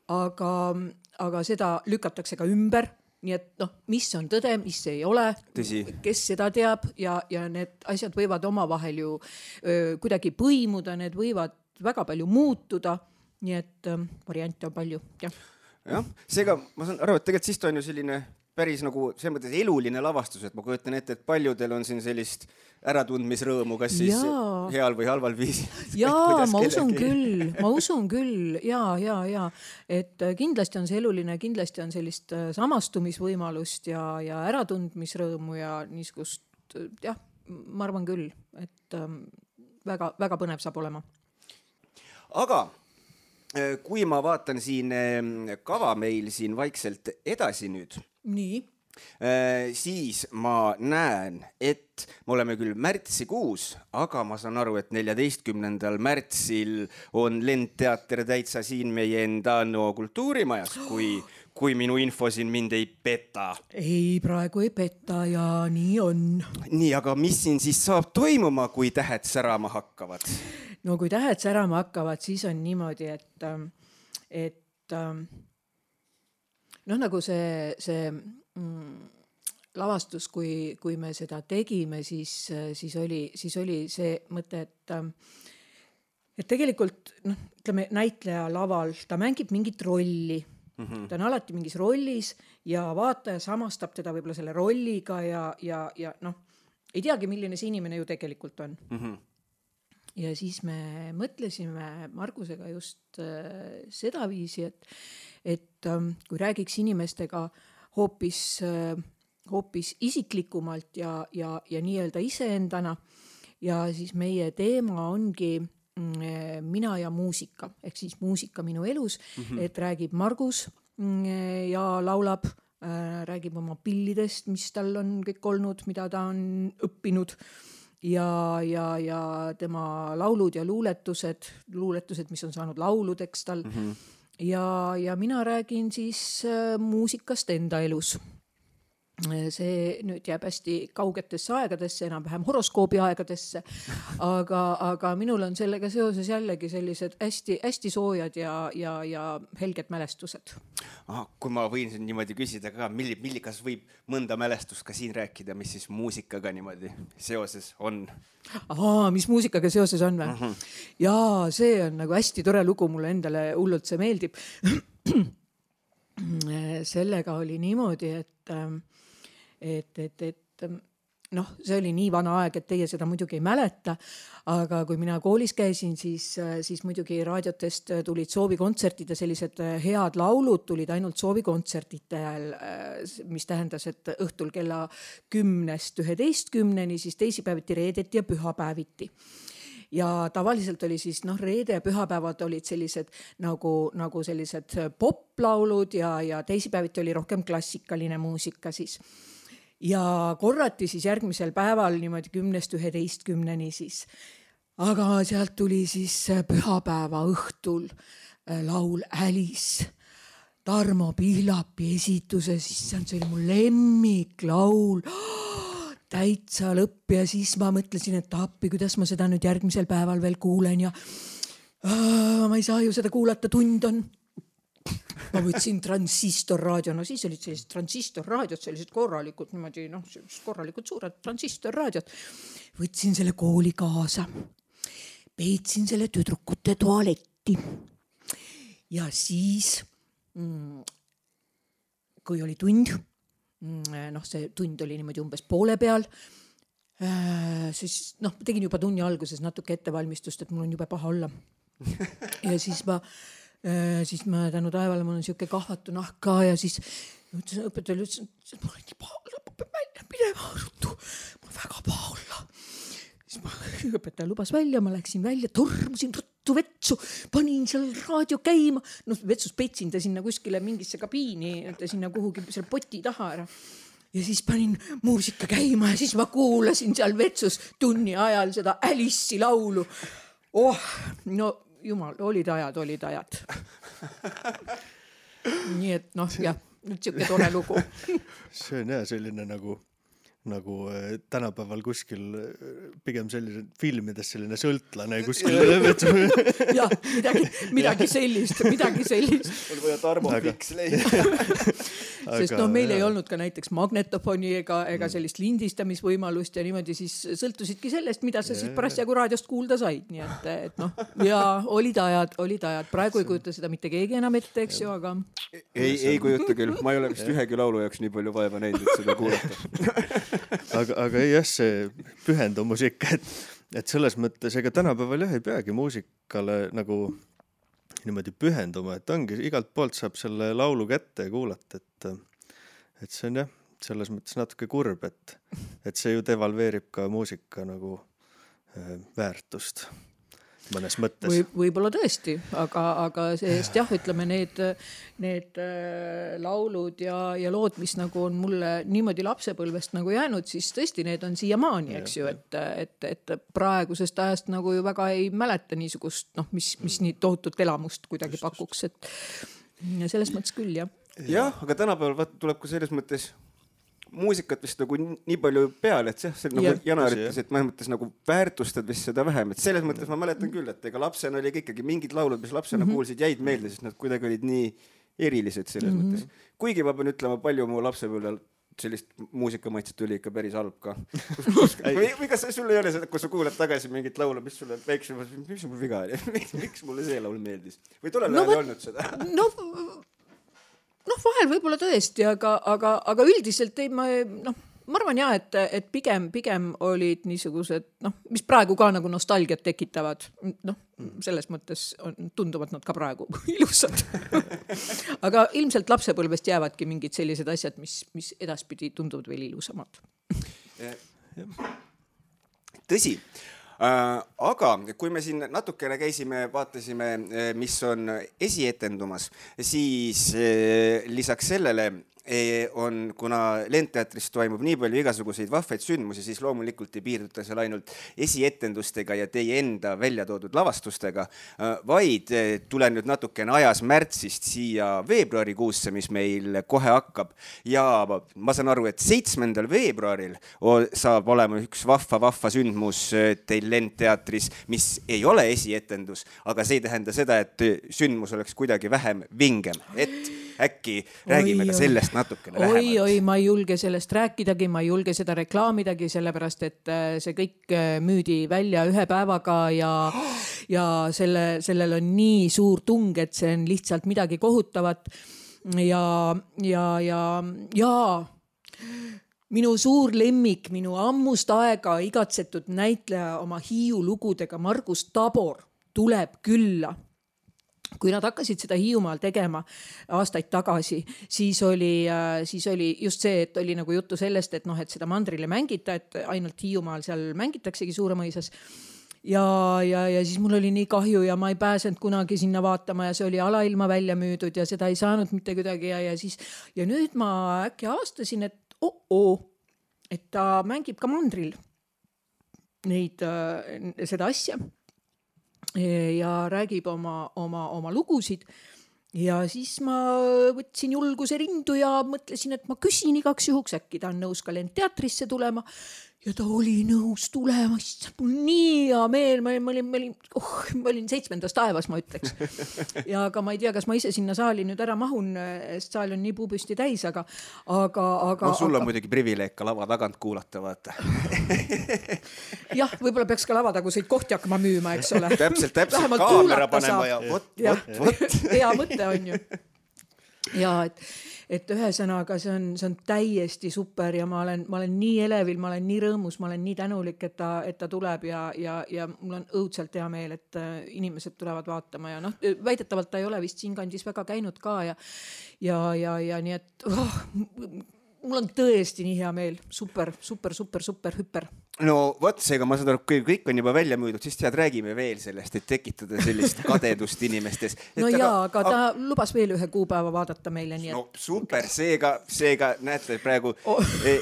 aga seda lükatakse ka ümber. Nii et mis on tõde, mis ei ole, kes seda teab ja need asjad võivad omavahel ju kuidagi põimuda, need võivad väga palju muutuda, nii et variante on palju. Jah, seega ma saan aru, et tegelikult siis ta on ju selline päris nagu selles mõttes eluline lavastus, et ma kujutan ette, et paljudel on siin sellist äratundmisrõõmu, kas siis heal või halval viisil. Jaa, ma usun küll, ja. Et kindlasti on see eluline, kindlasti on sellist samastumisvõimalust ja äratundmisrõõmu ja niisugust, ma arvan küll, et väga, väga põnev saab olema. Aga kui ma vaatan siin kava meil siin vaikselt edasi nüüd, siis ma näen, et me oleme küll märtsikuus, aga ma saan aru, et 14. märtsil on Lendteater täitsa siin meie enda kultuurimajas, kui minu info siin mind ei peta. Ei, praegu ei peta ja nii on. Nii, aga mis siin siis saab toimuma, kui tähed särama hakkavad? No kui tähed särama hakkavad, siis on niimoodi, et nagu see lavastus, kui me seda tegime, siis oli see mõte, et tegelikult ütleme, näitleja laval, ta mängib mingit rolli. Ta on alati mingis rollis ja vaataja samastab teda võib-olla selle rolliga ja ei teagi, milline see inimene ju tegelikult on. Ja siis me mõtlesime Margusega just seda viisi, et kui räägiks inimestega hoopis isiklikumalt ja nii-öelda iseendana ja siis meie teema ongi mina ja muusika, ehk siis muusika minu elus, et räägib Margus ja laulab, räägib oma pillidest, mis tal on kõik olnud, mida ta on õppinud ja tema laulud ja luuletused, mis on saanud lauludeks tal. Ja mina räägin siis muusikast enda elus. See nüüd jääb hästi kaugetesse aegadesse, enam-vähem horoskoobi aegadesse, aga minul on sellega seoses jällegi sellised hästi soojad ja helged mälestused. Kui ma võin siin niimoodi küsida ka, kas võib mõnda mälestust ka siin rääkida, mis siis muusikaga niimoodi seoses on? Mis muusikaga seoses on või? Jaa, see on nagu hästi tore lugu, mulle endale hullult see meeldib. Sellega oli niimoodi, et see oli nii vana aeg, et teie seda muidugi ei mäleta, aga kui mina koolis käisin, siis muidugi raadiotest tulid soovikontsertid ja sellised head laulud tulid ainult soovikontsertide ajal, mis tähendas, et õhtul kella 10-11, siis teisipäeviti, reedeti ja pühapäeviti. Ja tavaliselt oli siis, reede ja pühapäevad olid sellised nagu sellised poplaulud ja teisipäeviti oli rohkem klassikaline muusika siis. Ja korrati siis järgmisel päeval niimoodi 10-11 siis. Aga sealt tuli siis pühapäeva õhtul laul Alice, Tarmo Pihlapi esituse, siis see oli mu lemmiklaul. Täitsa lõpp ja siis ma mõtlesin, et appi, kuidas ma seda nüüd järgmisel päeval veel kuulen ja ma ei saa ju seda kuulata, tund on. Ma võtsin transistorraadio, siis olid sellised transistorraadiod, sellised korralikud, niimoodi, korralikud suured transistorraadiod. Võtsin selle kooli kaasa, peetsin selle tüdrukute tualetti ja siis, kui oli tund, see tund oli niimoodi umbes poole peal, siis tegin juba tunni alguses natuke ettevalmistust, et mul on jube paha olla. Ja siis ma tänu taevale, mul on siuke kahvatu nahk ka ja siis õpetajale ütlesin, et mul on nii paha olla, ma pean välja minema ruttu, mul on väga paha olla. Siis õpetaja lubas välja, ma läksin välja, tormusin ruttu vetsu, panin seal raadio käima, vetsus petsin ta sinna kuskile mingisse kabiini, sinna kuhugi selle poti taha ära. Ja siis panin muusika käima ja siis ma kuulasin seal vetsus tunni ajal seda Alice'i laulu. Jumal, olid ajad. Nii et jah, nüüd siuke tore lugu. See on selline nagu tänapäeval kuskil pigem selline filmides selline sõltlane kuskil. Jah, midagi sellist. On vaja Tarmo Fiks leida. Sest meil ei olnud ka näiteks magnetofoni ega sellist lindistamisvõimalust ja niimoodi siis sõltusidki sellest, mida sa siis parasjagu raadiost kuulda said. Nii et ja olid ajad. Praegu ei kujuta seda mitte keegi enam ette, eks ju, aga... Ei kujuta küll. Ma ei ole vist ühegi laulu jaoks nii palju vaeva näinud, et seda kuulata. Aga jah, see pühendumus ikka, et selles mõttes, ega tänapäeval ei peagi muusikale nagu niimoodi pühenduma, et ongi, igalt poolt saab selle laulu kätte ja kuulata, et see on jah, selles mõttes natuke kurb, et see ju devalveerib ka muusika nagu väärtust mõnes mõttes. Võib-olla tõesti, aga seest jah, ütleme need laulud ja lood, mis nagu on mulle niimoodi lapsepõlvest nagu jäänud, siis tõesti need on siiamaani, eks ju, et praegusest ajast nagu ju väga ei mäleta niisugust, mis nii tohutut elamust kuidagi pakuks, et selles mõttes küll, jah. Jah, aga tänapäeval tuleb ka selles mõttes muusikat vist nagu nii palju peale, et see nagu Janar ütles, et mõnes mõttes nagu väärtustad vist seda vähem, et selles mõttes ma mäletan küll, et ega lapsena oli ikkagi mingid laulud, mis lapsena kuulsid, jäid meelde, sest nad kuidagi olid nii erilised selles mõttes. Kuigi ma pean ütlema, palju mu lapsepõlvel sellist muusikamaitset tuli ikka päris halb ka. Või kas sul ei ole seda, kui sa kuulad tagasi mingit laulu, mis sulle väiksem, mis mul viga oli, miks mulle see laul meeldis? Või tollel ajal ei olnud seda? Vahel võib-olla tõesti, aga üldiselt ma arvan jah, et pigem olid niisugused, mis praegu ka nagu nostalgiat tekitavad, selles mõttes tunduvad nad ka praegu ilusad. Aga ilmselt lapsepõlvest jäävadki mingid sellised asjad, mis edaspidi tunduvad veel ilusamad. tõsi. Aga kui me siin natukene käisime, vaatasime, mis on esietendumas, siis lisaks sellele on, kuna Lendteatris toimub nii palju igasuguseid vahvaid sündmusi, siis loomulikult ei piirduta seal ainult esietendustega ja teie enda välja toodud lavastustega, vaid tulen nüüd natukene ajas märtsist siia veebruarikuusse, mis meil kohe hakkab. Ja ma saan aru, et 7. veebruaril saab olema üks vahva sündmus teil Lendteatris, mis ei ole esietendus, aga see ei tähenda seda, et sündmus oleks kuidagi vähem vingem, et äkki räägime ka sellest natukene lähemalt. Oi, ma ei julge sellest rääkidagi, ma ei julge seda reklaamidagi, sellepärast et see kõik müüdi välja ühe päevaga ja sellel on nii suur tung, et see on lihtsalt midagi kohutavat. Ja minu suur lemmik, minu ammust aega igatsetud näitleja oma Hiiu lugudega Margus Tabor tuleb külla. Kui nad hakkasid seda Hiiumaal tegema aastaid tagasi, siis oli just see, et oli nagu juttu sellest, et et seda mandrile mängita, et ainult Hiiumaal seal mängitaksegi Suuremõisas. Ja siis mul oli nii kahju ja ma ei pääsenud kunagi sinna vaatama ja see oli alailma välja müüdud ja seda ei saanud mitte kuidagi ja nüüd ma äkki avastasin, et et ta mängib ka mandril seda asja. Ja räägib oma lugusid ja siis ma võtsin julguse rindu ja mõtlesin, et ma küsin igaks juhuks, äkki ta on nõus ka Lendteatrisse tulema ja ta oli nõus tulema, mul nii hea meel, ma olin 7. taevas, ma ütleks. Ja aga ma ei tea, kas ma ise sinna saali nüüd ära mahun, sest saal on nii puupüsti täis, aga sul on muidugi privileeg ka lava tagant kuulata, vaata. Jah, võib-olla peaks ka lavataguseid kohti hakkama müüma, eks ole. Täpselt, kaamera panema ja vot. Hea mõte on ju. Ja et ühesõnaga see on täiesti super ja ma olen nii elevil, ma olen nii rõõmus, ma olen nii tänulik, et ta tuleb ja mul on õudselt hea meel, et inimesed tulevad vaatama ja väidetavalt ta ei ole vist siin kandis väga käinud ka ja nii et mul on tõesti nii hea meel, super hüper. No vot, seega ma saan aru, kui kõik on juba välja müüdud, siis räägime veel sellest, et tekitada sellist kadedust inimestes. Aga ta lubas veel ühe kuupäeva vaadata meile. Nii no super, seega näete praegu,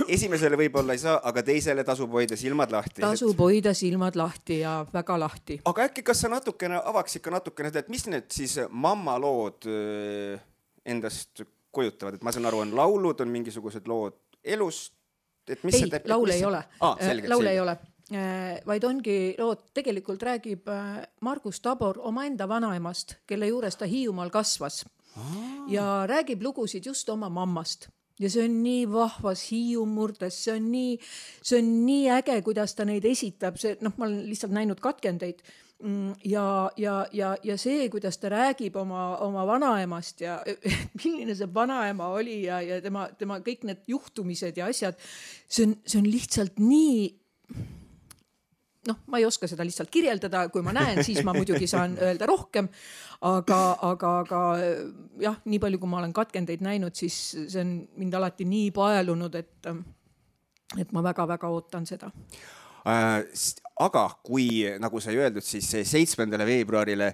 esimesele võib-olla ei saa, aga teisele tasub hoida silmad lahti. Tasub hoida silmad lahti ja väga lahti. Aga äkki kas sa avaks ikka natukene, et mis need siis mammalood endast kujutavad, et ma saan aru, on laulud, on mingisugused lood elust, et mis ei, laule ei ole. Laule ei ole. Vaid ongi lood, tegelikult räägib Margus Tabor omaenda vanaemast, kelle juures ta Hiiumaal kasvas. Ja räägib lugusid just oma mammast. Ja see on nii vahvas Hiiumurdes, see on nii äge, kuidas ta neid esitab. Ma olen lihtsalt näinud katkendeid. Ja see, kuidas ta räägib oma vanaemast ja milline see vanaema oli ja tema kõik need juhtumised ja asjad, see on lihtsalt nii, ma ei oska seda lihtsalt kirjeldada, kui ma näen, siis ma muidugi saan öelda rohkem, aga jah, nii palju, kui ma olen katkendeid näinud, siis see on mind alati nii paelunud, et ma väga-väga ootan seda. Aga kui, nagu sai öeldud, siis 7. veebruarile,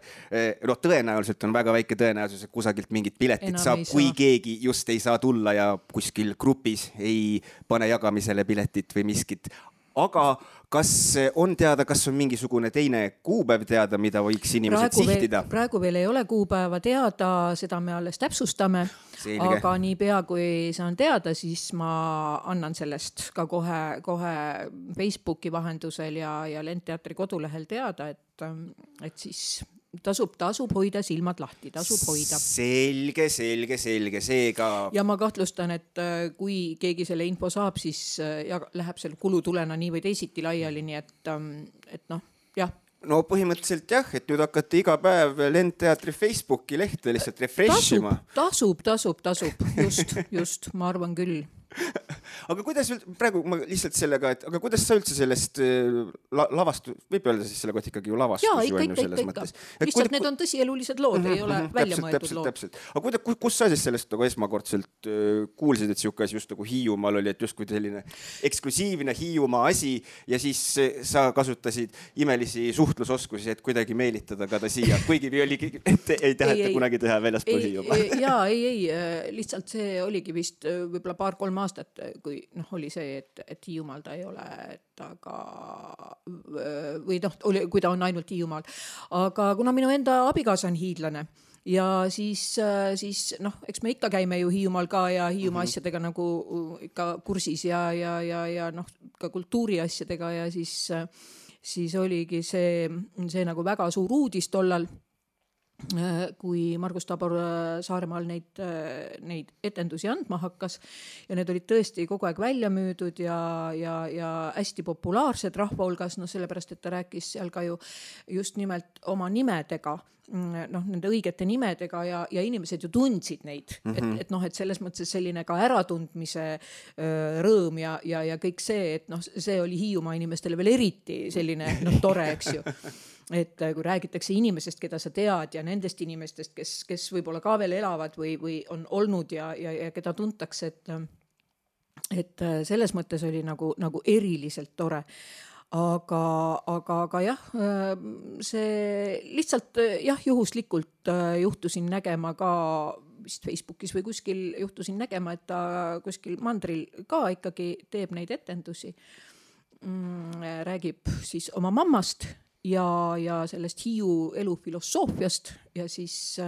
tõenäoliselt on väga väike tõenäosus, et kusagilt mingit piletit saab, kui keegi just ei saa tulla ja kuskil grupis ei pane jagamisele piletit või miskit. Aga kas on teada, kas on mingisugune teine kuupäev teada, mida võiks inimesed sihtida? Praegu veel ei ole kuupäeva teada, seda me alles täpsustame. Selge. Aga nii pea, kui saan teada, siis ma annan sellest ka kohe Facebooki vahendusel ja Lendteatri kodulehel teada, et siis tasub hoida silmad lahti, tasub hoida. Selge, seega. Ja ma kahtlustan, et kui keegi selle info saab, siis läheb selle kulutulena nii või teisiti laiali, nii et jah. No põhimõtteliselt jah, et nüüd hakkate iga päev Lendteatri Facebooki lehte lihtsalt refreshima. Tasub, just, ma arvan küll. aga kuidas praegu ma lihtsalt sellega, et aga kuidas sa üldse sellest lavastu, võib öelda siis selle kohta ikkagi ju lavastus ju on ju selles mõttes. Lihtsalt need on tõsielulised lood, ei ole välja mõeldud lood. Täpselt. Aga kus sa siis sellest nagu esmakordselt kuulsid, et siuke asi just nagu Hiiumaal oli, et justkui selline eksklusiivne Hiiumaa asi ja siis sa kasutasid imelisi suhtlusoskusi, et kuidagi meelitada ka ta siia, kuigi ei taheta kunagi teha väljaspool Hiiumaa. Jaa, ei, lihtsalt see oligi vist võib-olla 2-3 aastat, kui oli see, et Hiiumaal ta ei ole, aga või kui ta on ainult Hiiumaal. Aga kuna minu enda abikaasa on hiidlane ja siis eks me ikka käime ju Hiiumaal ka ja Hiiumaa asjadega nagu ikka kursis ja ka kultuuri asjadega ja siis oligi see nagu väga suur uudis tollal, kui Margus Tabor Saaremaal neid etendusi andma hakkas ja need olid tõesti kogu aeg välja müüdud ja hästi populaarsed rahva hulgas, sellepärast, et ta rääkis seal ka ju just nimelt oma nimedega, nende õigete nimedega ja inimesed ju tundsid neid, et selles mõttes selline ka äratundmise rõõm ja kõik see, et see oli Hiiumaa inimestele veel eriti selline tore, eks ju. Et kui räägitakse inimesest, keda sa tead ja nendest inimestest, kes võib-olla ka veel elavad või on olnud ja keda tuntakse, et selles mõttes oli nagu eriliselt tore. Aga jah, see lihtsalt juhuslikult juhtusin nägema ka vist Facebookis või kuskil juhtusin nägema, et ta kuskil mandril ka ikkagi teeb neid etendusi. Räägib siis oma mammast ja sellest Hiiu elufilosoofiast ja siis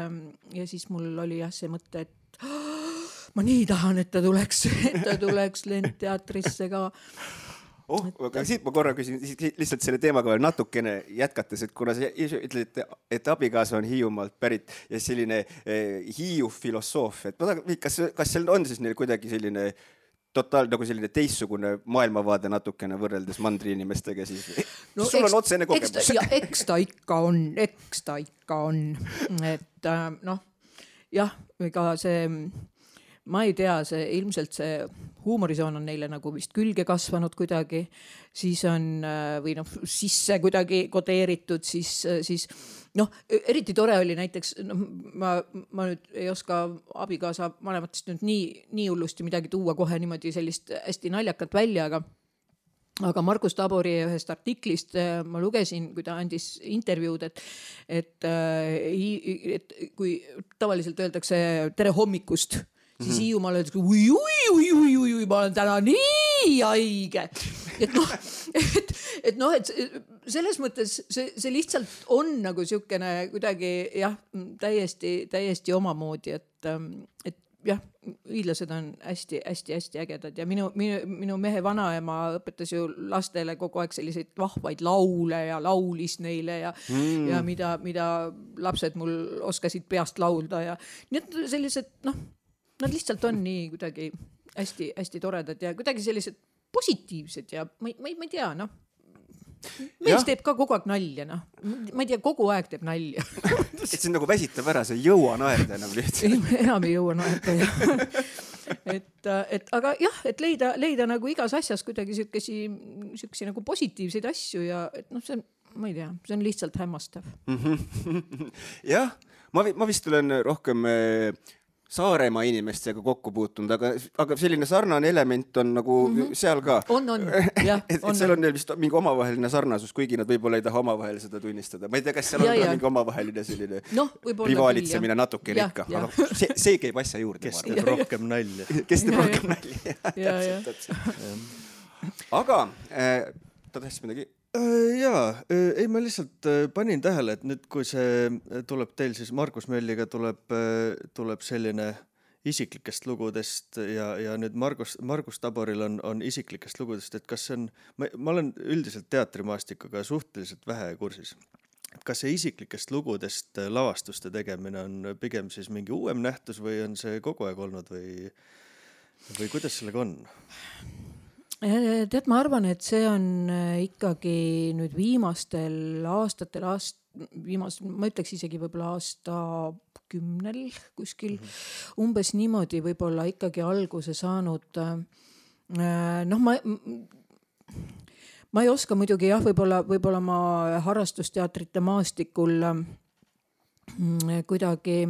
mul oli see mõte, et ma nii tahan, et ta tuleks Lendteatrisse ka. Aga siit ma korra küsin lihtsalt selle teemaga veel natukene jätkates, et kuna sa ütled, et abikaasa on Hiiumaalt pärit ja selline Hiiu filosoof, et kas seal on siis neil kuidagi selline nagu selline teissugune maailmavaade natukene võrreldes mandri inimestega siis? Sul on otsene kogemus. Eks ta ikka on. Et jah, ega see, ma ei tea, ilmselt see huumorisoon on neile nagu vist külge kasvanud kuidagi, siis on või sisse kuidagi kodeeritud, siis eriti tore oli näiteks, ma nüüd ei oska abikaasa vanematest nüüd nii hullusti midagi tuua kohe niimoodi sellist hästi naljakat välja, aga Margus Tabori ühest artiklist ma lugesin, kui ta andis intervjuud, et kui tavaliselt öeldakse tere hommikust, siis Hiiumaal öeldakse ui, ma olen täna nii haige. Et selles mõttes see lihtsalt on nagu siukene kuidagi täiesti omamoodi, et jah, hiidlased on hästi ägedad ja minu mehe vanaema õpetas ju lastele kogu aeg selliseid vahvaid laule ja laulis neile ja mida lapsed mul oskasid peast laulda ja nii et sellised, nad lihtsalt on nii kuidagi hästi toredad ja kuidagi sellised positiivsed ja ma ei tea, mees teeb ka kogu aeg nalja, ma ei tea, kogu aeg teeb nalja. Et see on nagu väsitab ära, see ei jõua naerda enam lihtsalt. Enam ei jõua naerda. Aga jah, et leida nagu igas asjas kuidagi siukesi nagu positiivseid asju ja et see ma ei tea, see on lihtsalt hämmastav. Jah, ma vist olen rohkem Saaremaa inimestega kokku puutunud, aga selline sarnane element on nagu seal ka. On, jah. Et seal on neil vist mingi omavaheline sarnasus, kuigi nad võib-olla ei taha omavahel seda tunnistada. Ma ei tea, kas seal on ka mingi omavaheline selline rivaalitsemine natuke ikka. See käib asja juurde. Kes teeb rohkem nalja. Kes teeb rohkem nalja. Aga ta tahtis midagi... Jaa, ei ma lihtsalt panin tähele, et nüüd kui see tuleb teil siis Margus Mölliga tuleb selline isiklikest lugudest ja nüüd Margus Taboril on isiklikest lugudest, et kas see on, ma olen üldiselt teatrimaastikuga suhteliselt vähe kursis. Kas see isiklikest lugudest lavastuste tegemine on pigem siis mingi uuem nähtus või on see kogu aeg olnud või kuidas sellega on? Tead, ma arvan, et see on ikkagi nüüd viimastel aastatel, ma ütleks isegi võib-olla aasta 10 kuskil umbes niimoodi võib-olla ikkagi alguse saanud noh, ma ei oska muidugi jah, võib-olla ma harrastusteatrite maastikul kuidagi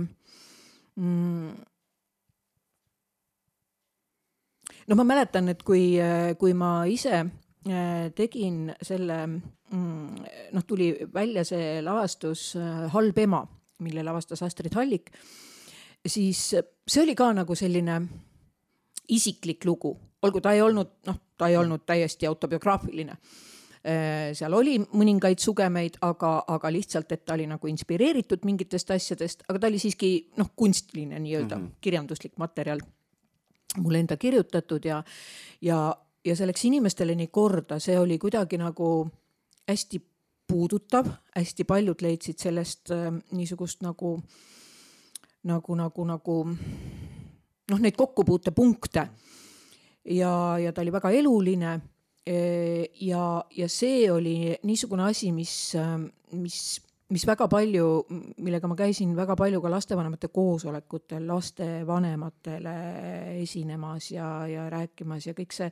no ma mäletan, et kui ma ise tegin selle, noh tuli välja see lavastus Halb ema, mille lavastas Astrid Hallik, siis see oli ka nagu selline isiklik lugu, olgu ta ei olnud täiesti autobiograafiline. Seal oli mõningaid sugemeid, aga lihtsalt, et ta oli nagu inspireeritud mingitest asjadest, aga ta oli siiski kunstiline nii-öelda kirjanduslik materjal mulle enda kirjutatud ja see läks inimestele nii korda, see oli kuidagi nagu hästi puudutav, hästi paljud leidsid sellest niisugust nagu neid kokkupuutepunkte ja ta oli väga eluline ja see oli niisugune asi, mis väga palju, millega ma käisin väga palju ka lastevanemate koosolekutel, lastevanematele esinemas ja rääkimas ja kõik see,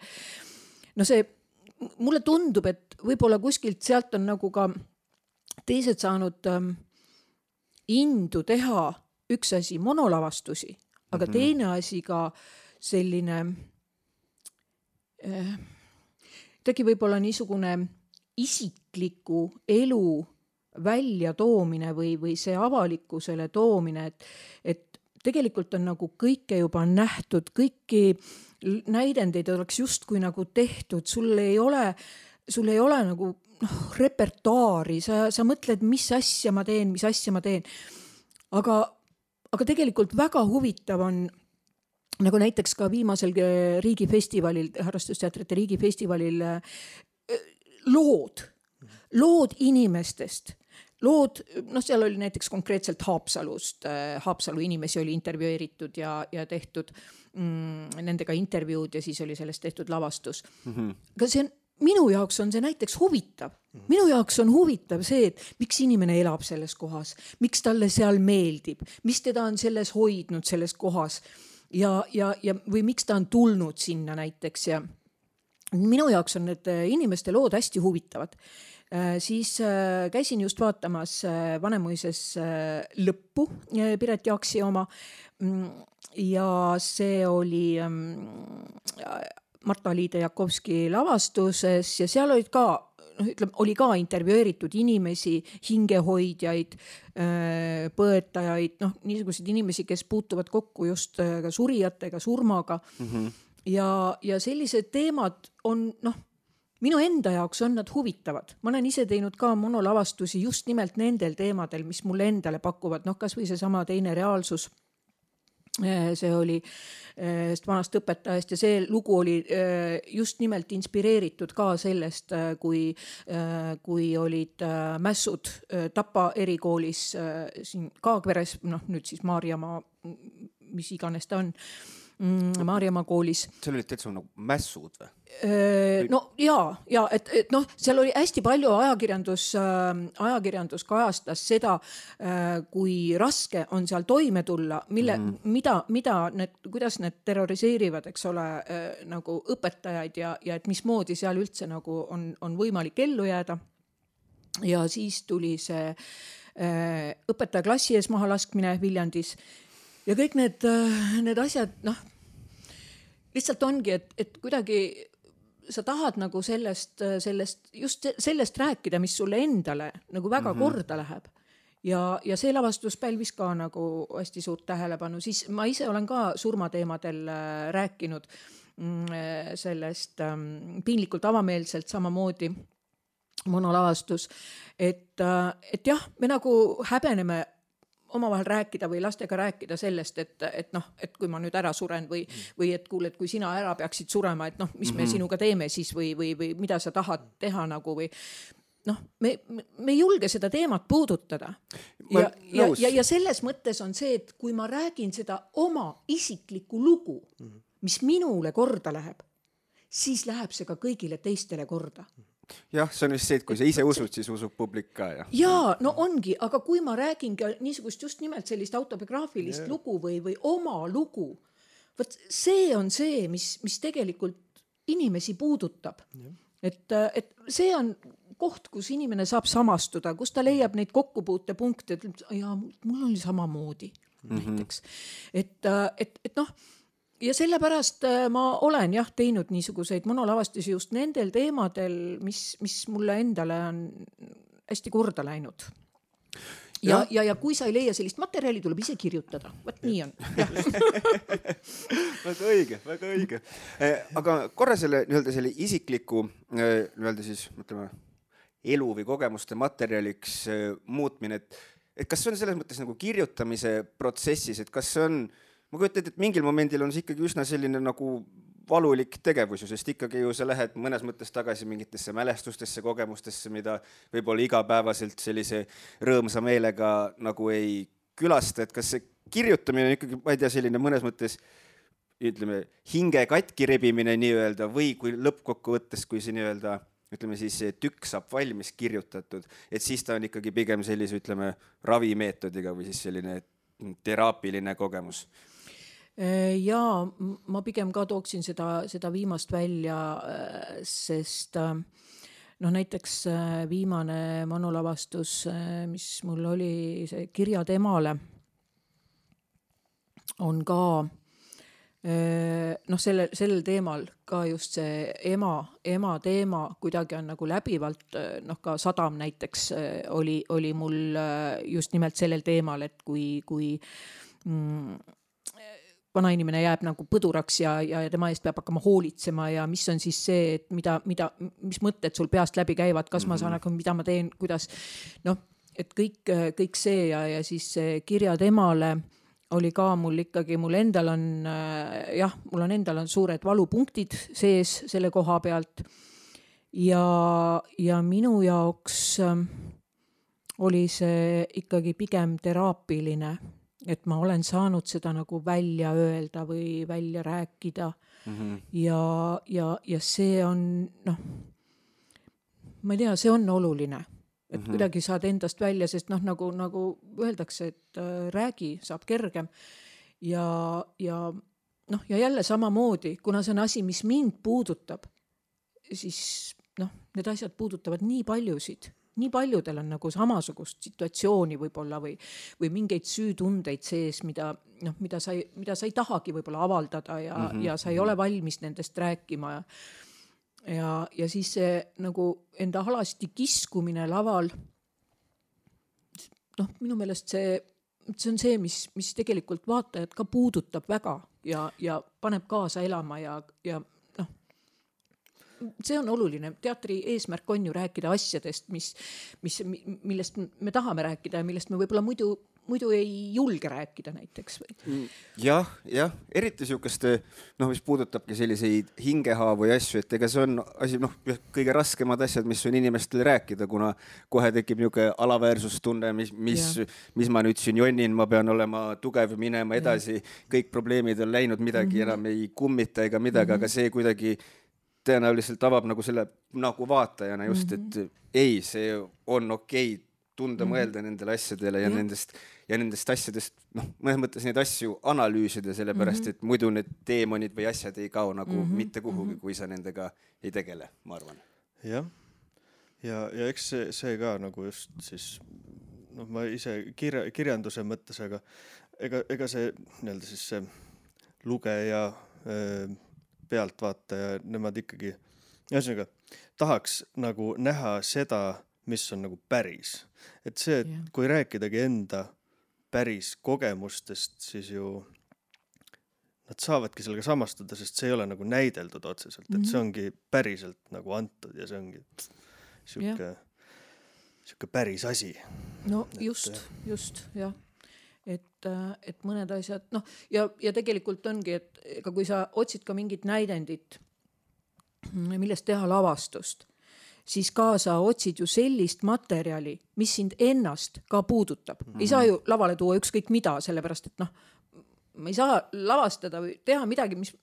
mulle tundub, et võib-olla kuskilt sealt on nagu ka teised saanud indu teha üks asi monolavastusi, aga teine asi ka selline tegi võib-olla niisugune isikliku elu välja toomine või see avalikkusele toomine, et tegelikult on nagu kõike juba nähtud, kõiki näidendeid oleks justkui nagu tehtud, sul ei ole nagu repertuaari, sa mõtled, mis asja ma teen. Aga tegelikult väga huvitav on nagu näiteks ka viimasel riigifestivalil, harrastusteatrite riigifestivalil lood inimestest. Seal oli näiteks konkreetselt Haapsalu inimesi oli intervjueeritud ja tehtud nendega intervjuud ja siis oli sellest tehtud lavastus. Aga minu jaoks on see näiteks huvitav. Minu jaoks on huvitav see, et miks inimene elab selles kohas, miks talle seal meeldib, mis teda on selles hoidnud selles kohas ja või miks ta on tulnud sinna näiteks ja minu jaoks on need inimeste lood hästi huvitavad. Siis käisin just vaatamas Vanemuises lõppu Piret Jaaksi oma ja see oli Marta-Liide Jakovski lavastuses ja seal olid ka, oli ka intervjueeritud inimesi, hingehoidjaid, põetajaid, niisuguseid inimesi, kes puutuvad kokku just ka surijatega, surmaga ja sellised teemad on, minu enda jaoks on nad huvitavad. Ma olen ise teinud ka monolavastusi just nimelt nendel teemadel, mis mulle endale pakuvad. Kas või see sama Teine reaalsus. See oli vanast õpetajast ja see lugu oli just nimelt inspireeritud ka sellest, kui olid mässud Tapa erikoolis siin Kaagveres, nüüd siis Maarjamaa, mis iganes ta on, Maarjamaa koolis. Seal olid täitsa nagu mässud või? et seal oli hästi palju ajakirjandus kajastas seda, kui raske on seal toime tulla, kuidas need terroriseerivad, eks ole, nagu õpetajaid ja et mismoodi seal üldse nagu on võimalik ellu jääda. Ja siis tuli see õpetaja klassi ees maha laskmine Viljandis ja kõik need asjad, lihtsalt ongi, et kuidagi sa tahad nagu just sellest rääkida, mis sulle endale nagu väga korda läheb. Ja see lavastus pälvis ka nagu hästi suurt tähelepanu. Siis ma ise olen ka surmateemadel rääkinud sellest piinlikult avameelselt samamoodi monolavastus, et jah, me nagu häbeneme omavahel rääkida või lastega rääkida sellest, et kui ma nüüd ära suren või et kuule, et kui sina ära peaksid surema, et mis me sinuga teeme siis või mida sa tahad teha nagu või me ei julge seda teemat puudutada. Ja selles mõttes on see, et kui ma räägin seda oma isiklikku lugu, mis minule korda läheb, siis läheb see ka kõigile teistele korda. Jah, see on vist see, et kui sa ise usud, siis usub publik ka. Jaa, ongi, aga kui ma räägin ka niisugust just nimelt sellist autobiograafilist lugu või oma lugu, võt see on see, mis tegelikult inimesi puudutab. Et see on koht, kus inimene saab samastuda, kus ta leiab neid kokkupuutepunkte, et ja mul oli samamoodi näiteks. Et noh, ja sellepärast ma olen teinud niisuguseid monolavastusi just nendel teemadel, mis mulle endale on hästi korda läinud. Ja kui sa ei leia sellist materjali, tuleb ise kirjutada. Võt nii on. Väga õige. Aga korra selle isikliku siis, mõtleme, elu või kogemuste materjaliks muutmine, et kas see on selles mõttes nagu kirjutamise protsessis, et kas see on, ma kujutan, et mingil momendil on see ikkagi üsna selline nagu valulik tegevus, sest ikkagi ju sa lähed mõnes mõttes tagasi mingitesse mälestustesse, kogemustesse, mida võib-olla igapäevaselt sellise rõõmsa meelega nagu ei külasta, et kas see kirjutamine on ikkagi, ma ei tea, selline mõnes mõttes, ütleme, hinge katki rebimine nii-öelda või kui lõppkokkuvõttes, kui see nii-öelda, ütleme siis see tükk saab valmis kirjutatud, et siis ta on ikkagi pigem sellise, ütleme, ravimeetodiga või siis selline teraapiline kogemus. Ja ma pigem ka tooksin seda viimast välja, sest näiteks viimane monolavastus, mis mul oli see Kirjad emale, on ka sellel teemal ka just see ema teema kuidagi on nagu läbivalt, ka Sadam näiteks oli mul just nimelt sellel teemal, et kui vanainimene jääb nagu põduraks ja tema eest peab hakkama hoolitsema ja mis on siis see, et mis mõtted sul peast läbi käivad, kas ma saan, mida ma teen, kuidas, et kõik see ja siis Kirjad emale oli ka mul ikkagi, mul endal on suured valupunktid sees selle koha pealt ja minu jaoks oli see ikkagi pigem teraapiline, et ma olen saanud seda nagu välja öelda või välja rääkida ja see on, ma ei tea, see on oluline, et kuidagi saad endast välja, sest nagu öeldakse, et räägi, saab kergem ja jälle samamoodi, kuna see on asi, mis mind puudutab, siis need asjad puudutavad nii paljusid. Nii paljudel on nagu samasugust situatsiooni võib-olla või mingeid süütundeid sees, mida sa ei tahagi võib-olla avaldada ja sa ei ole valmis nendest rääkima ja siis see nagu enda alasti kiskumine laval, minu meelest see on see, mis tegelikult vaatajad ka puudutab väga ja paneb kaasa elama ja see on oluline. Teatri eesmärk on ju rääkida asjadest, millest me tahame rääkida ja millest me võib-olla muidu ei julge rääkida näiteks. Jah, eriti sihukest, mis puudutabki selliseid hingehaavu ja asju, et ega see on asi, kõige raskemad asjad, mis on inimestele rääkida, kuna kohe tekib niisugune alaväärsustunne, mis ma nüüd siin jonnin, ma pean olema tugev, minema edasi, kõik probleemid on läinud, midagi enam ei kummita ega midagi, aga see kuidagi tõenäoliselt avab nagu selle nagu vaatajana just, et ei, see on okei tunda mõelda nendele asjadele ja nendest asjadest, mõnes mõttes neid asju analüüsida, sellepärast, et muidu need teemonid või asjad ei kao nagu mitte kuhugi, kui sa nendega ei tegele, ma arvan. Jah, ja eks see ka nagu just siis, ma ise kirjanduse mõttes, aga ega see nii-öelda siis see lugeja pealtvaataja, nemad ikkagi ühesõnaga tahaks nagu näha seda, mis on nagu päris. Et see, et kui rääkidagi enda päris kogemustest, siis ju nad saavadki sellega samastuda, sest see ei ole nagu näideldud otseselt, et see ongi päriselt nagu antud ja see ongi siuke päris asi. No just, jah. Et mõned asjad, ja tegelikult ongi, et kui sa otsid ka mingit näidendit, millest teha lavastust, siis ka sa otsid ju sellist materjali, mis sind ennast ka puudutab. Ei saa ju lavale tuua ükskõik mida, sellepärast, et ma ei saa lavastada või teha midagi, mis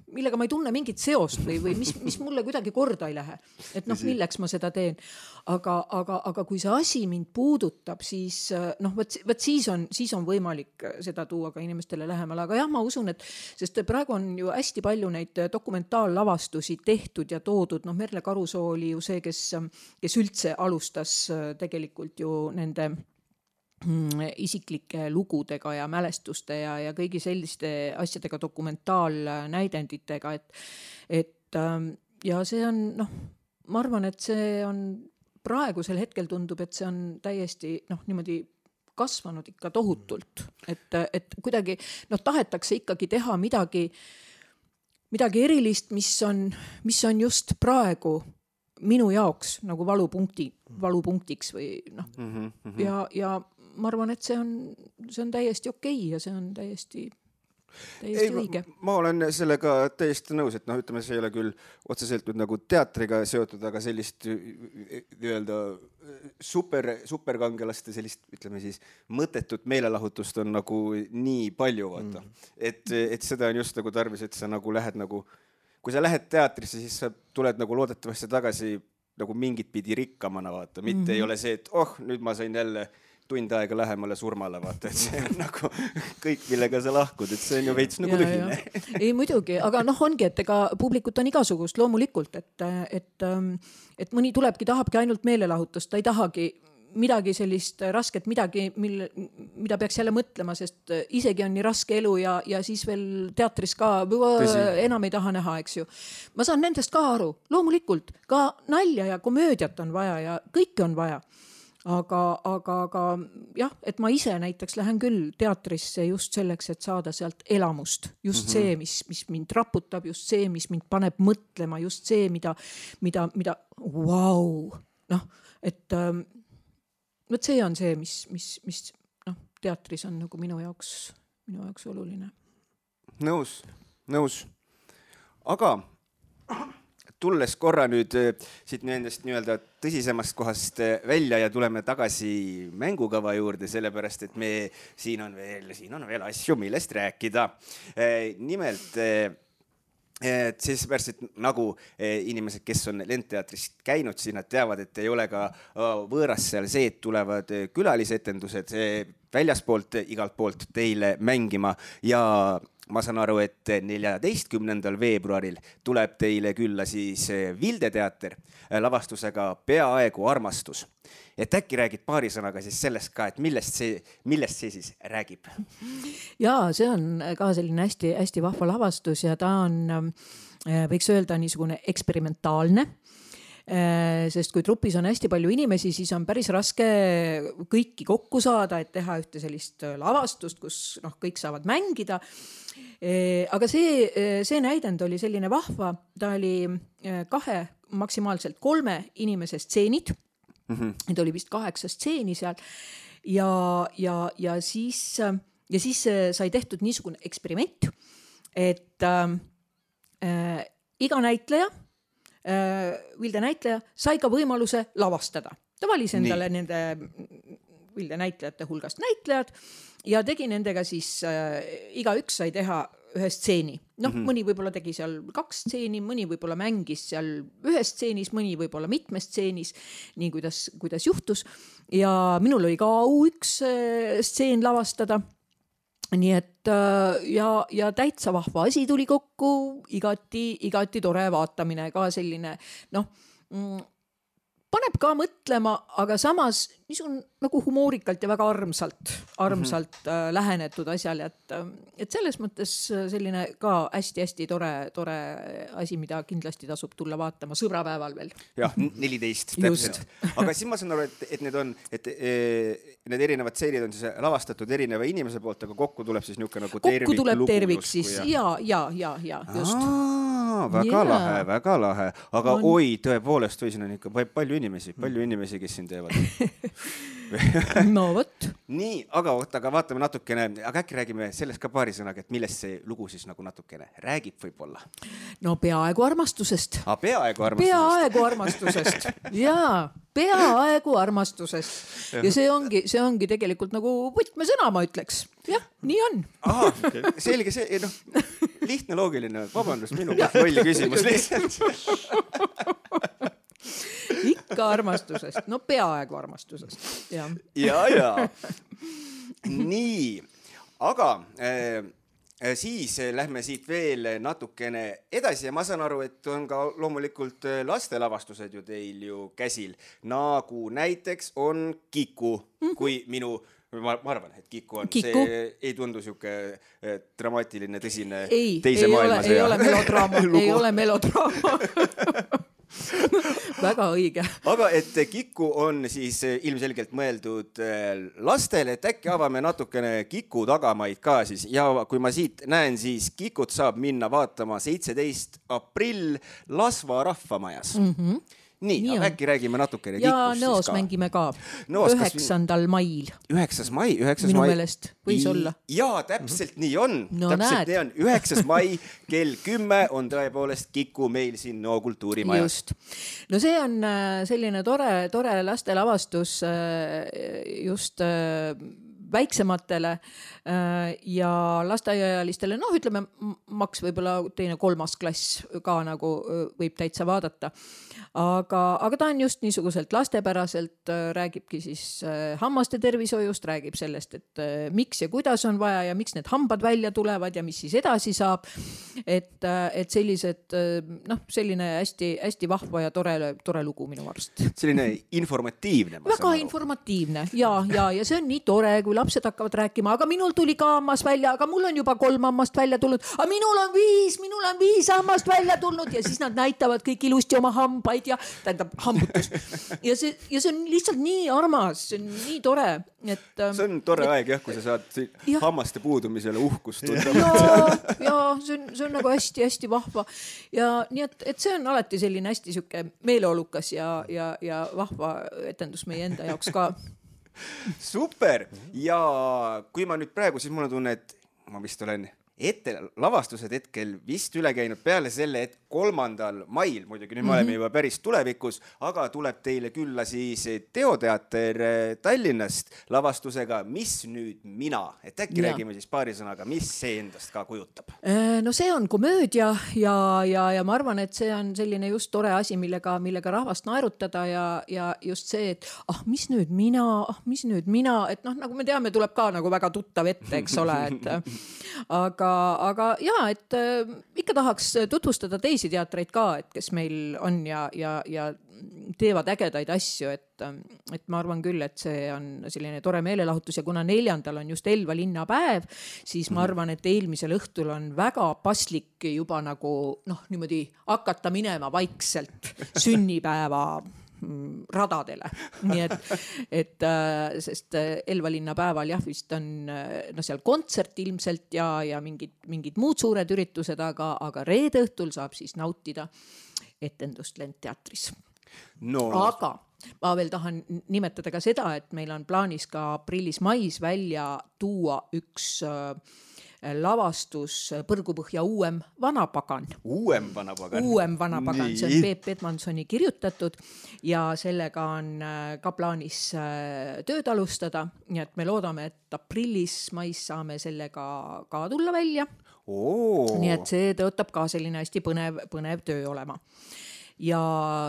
millega ma ei tunne mingit seost või mis mulle kuidagi korda ei lähe. Et noh, milleks ma seda teen. Aga kui see asi mind puudutab, siis noh, võt siis on võimalik seda tuua ka inimestele lähemale. Aga jah, ma usun, et sest praegu on ju hästi palju neid dokumentaallavastusi tehtud ja toodud. Noh, Merle Karusoo oli ju see, kes üldse alustas tegelikult ju nende isiklike lugudega ja mälestuste ja kõigi selliste asjadega, dokumentaalnäidenditega, et ja see on, noh, ma arvan, et see on praegusel hetkel tundub, et see on täiesti, noh, niimoodi kasvanud ikka tohutult, et kuidagi, noh, tahetakse ikkagi teha midagi erilist, mis on just praegu minu jaoks nagu valupunktiks või noh, ja ma arvan, et see on täiesti okei ja see on täiesti õige. Ma olen sellega täiesti nõus, et noh, ütleme, see ei ole küll otseselt nüüd nagu teatriga seotud, aga sellist nii-öelda superkangelaste sellist, ütleme siis, mõttetut meelelahutust on nagu nii palju, vaata. Et seda on just nagu tarvis, et sa nagu lähed nagu, kui sa lähed teatrisse, siis sa tuled nagu loodetavasti tagasi nagu mingit pidi rikkamana, vaata. Mitte ei ole see, et nüüd ma sain jälle tund aega lähemale surmale, vaata, et see on nagu kõik, millega sa lahkud, et see on ju veits nagu tühine. Ei muidugi, aga noh, ongi, et ega publikut on igasugust loomulikult, et mõni tahabki ainult meelelahutust, ta ei tahagi midagi sellist rasket, midagi, mida peaks jälle mõtlema, sest isegi on nii raske elu ja siis veel teatris ka enam ei taha näha, eks ju. Ma saan nendest ka aru, loomulikult, ka nalja ja komöödiat on vaja ja kõike on vaja. Aga jah, et ma ise näiteks lähen küll teatrisse just selleks, et saada sealt elamust. Just see, mis mind raputab, just see, mis mind paneb mõtlema, just see, mida wow, noh, et see on see, mis noh, teatris on nagu minu jaoks oluline. Nõus. Aga tulles korra nüüd siit nendest nii-öelda tõsisemast kohast välja ja tuleme tagasi mängukava juurde, sellepärast, et siin on veel asju, millest rääkida. Nimelt, siis pärast, et nagu inimesed, kes on Lendteatrist käinud, siis nad teavad, et ei ole ka võõras seal see, et tulevad külalisetendused väljaspoolt igalt poolt teile mängima ja ma saan aru, et 14. veebruaril tuleb teile külla siis Vilde teater lavastusega Peaaegu armastus. Et äkki räägid paari sõnaga siis sellest ka, et millest see siis räägib? Jaa, see on ka selline hästi, hästi vahva lavastus ja ta on, võiks öelda, niisugune eksperimentaalne. Sest kui trupis on hästi palju inimesi, siis on päris raske kõiki kokku saada, et teha ühte sellist lavastust, kus kõik saavad mängida. Aga see näidend oli selline vahva, ta oli 2, maksimaalselt 3 inimese stseenid. Need oli vist 8 stseeni seal ja siis sai tehtud niisugune eksperiment, et iga näitleja, Vilde näitleja, sai ka võimaluse lavastada. Ta valis endale nende Vilde näitlejate hulgast näitlejad ja tegi nendega siis, igaüks sai teha ühe stseeni. Mõni võib-olla tegi seal 2 stseeni, mõni võib-olla mängis seal ühes stseenis, mõni võib-olla mitmes stseenis, nii kuidas juhtus. Ja minul oli ka üks stseen lavastada. Nii et ja täitsa vahva asi tuli kokku, igati tore vaatamine, ka selline, paneb ka mõtlema, aga samas niisugune nagu humoorikalt ja väga armsalt lähenetud asjal, et selles mõttes selline ka hästi tore asi, mida kindlasti tasub tulla vaatama sõbrapäeval veel. Jah, 14 täpselt. Aga siis ma saan aru, et need erinevad seeriad on siis lavastatud erineva inimese poolt, aga kokku tuleb siis niisugune nagu tervik. Kokku tuleb tervik siis, ja, just. Väga lahe. Aga oi, tõepoolest, või siin on ikka palju inimesi, kes siin teevad. No võt. Nii, aga vaatame natukene, aga äkki räägime sellest ka paari sõnaga, et millest see lugu siis nagu natukene räägib võib-olla? No peaaegu armastusest. Peaaegu armastusest. Jaa, peaaegu armastusest. Ja see ongi tegelikult nagu võtmesõna, ma ütleks. Jah, nii on. Selge see, lihtne, loogiline. Vabandust, minu lolli küsimus lihtsalt. Ikka armastusest. No peaaegu armastusest. Ja. Nii, aga siis lähme siit veel natukene edasi ja ma saan aru, et on ka loomulikult lastelavastused ju teil ju käsil. Nagu näiteks on Kiku, kui minu... Ma arvan, et Kiku on. Kiku. See ei tundu siuke dramaatiline, tõsine teise maailmasõja. Ei ole melodraama. Ei ole melodraama. Väga õige. Aga et Kiku on siis ilmselgelt mõeldud lastele, et äkki avame natukene Kiku tagamaid ka siis. Ja kui ma siit näen, siis Kikut saab minna vaatama 17. aprill Lasva rahvamajas. Nii, äkki räägime natukene Kikust. Ja Nõos mängime ka 9. mail. 9. mai. Minu meelest võis olla. Jaa, täpselt nii on. No täpselt nii on. 9. mai kell 10 on tõepoolest Kiku meil siin Nõo kultuurimajas. Just. No see on selline tore lastelavastus just väiksematele ja lasteaiaealistele, ütleme maks võib-olla 2.–3. klass ka nagu võib täitsa vaadata. Aga ta on just niisuguselt lastepäraselt, räägibki siis hammaste tervishoiust, räägib sellest, et miks ja kuidas on vaja ja miks need hambad välja tulevad ja mis siis edasi saab. Et sellised, selline hästi vahva ja tore lugu minu arust. Selline informatiivne. Väga informatiivne ja see on nii tore, kui lapsed hakkavad rääkima, aga minul tuli ka hammas välja, aga mul on juba 3 hammast välja tulnud, aga minul on 5 hammast välja tulnud ja siis nad näitavad kõik ilusti oma hambaid ja tähendab hambutus. Ja see on lihtsalt nii armas, see on nii tore. See on tore aeg jah, kui sa saad hammaste puudumisele uhkust tunda. Ja see on nagu hästi vahva. Ja nii, et see on alati selline hästi süke meeleolukas ja vahva etendus meie enda jaoks ka. Super! Ja kui ma nüüd praegu, siis mul on tunne, et ma vist olen lavastused hetkel vist üle käinud peale selle, et 3. mail, muidugi nüüd me oleme juba päris tulevikus, aga tuleb teile külla siis Teoteater Tallinnast lavastusega Mis nüüd mina? Et äkki räägime siis paari sõnaga, mis see endast ka kujutab? No see on komöödia ja ma arvan, et see on selline just tore asi, millega rahvast naerutada ja just see, et mis nüüd mina, et nagu me teame, tuleb ka nagu väga tuttav ette, eks ole, et aga jaa, et ikka tahaks tutvustada teisi teatreid ka, et kes meil on ja teevad ägedaid asju, et ma arvan küll, et see on selline tore meelelahutus ja kuna 4. on just Elva linnapäev, siis ma arvan, et eelmisel õhtul on väga paslik juba nagu niimoodi hakata minema vaikselt sünnipäeva radadele. Nii et sest Elva linnapäeval vist on seal kontsert ilmselt ja mingid muud suured üritused, aga reede õhtul saab siis nautida etendust Lendteatris. Aga ma veel tahan nimetada ka seda, et meil on plaanis ka aprillis-mais välja tuua üks lavastus Põrgupõhja uuem vanapagan. Uuem vanapagan, see on Peep Edmansoni kirjutatud ja sellega on ka plaanis tööd alustada, nii et me loodame, et aprillis-mais saame sellega ka tulla välja. Nii et see tõotab ka selline hästi põnev töö olema. Ja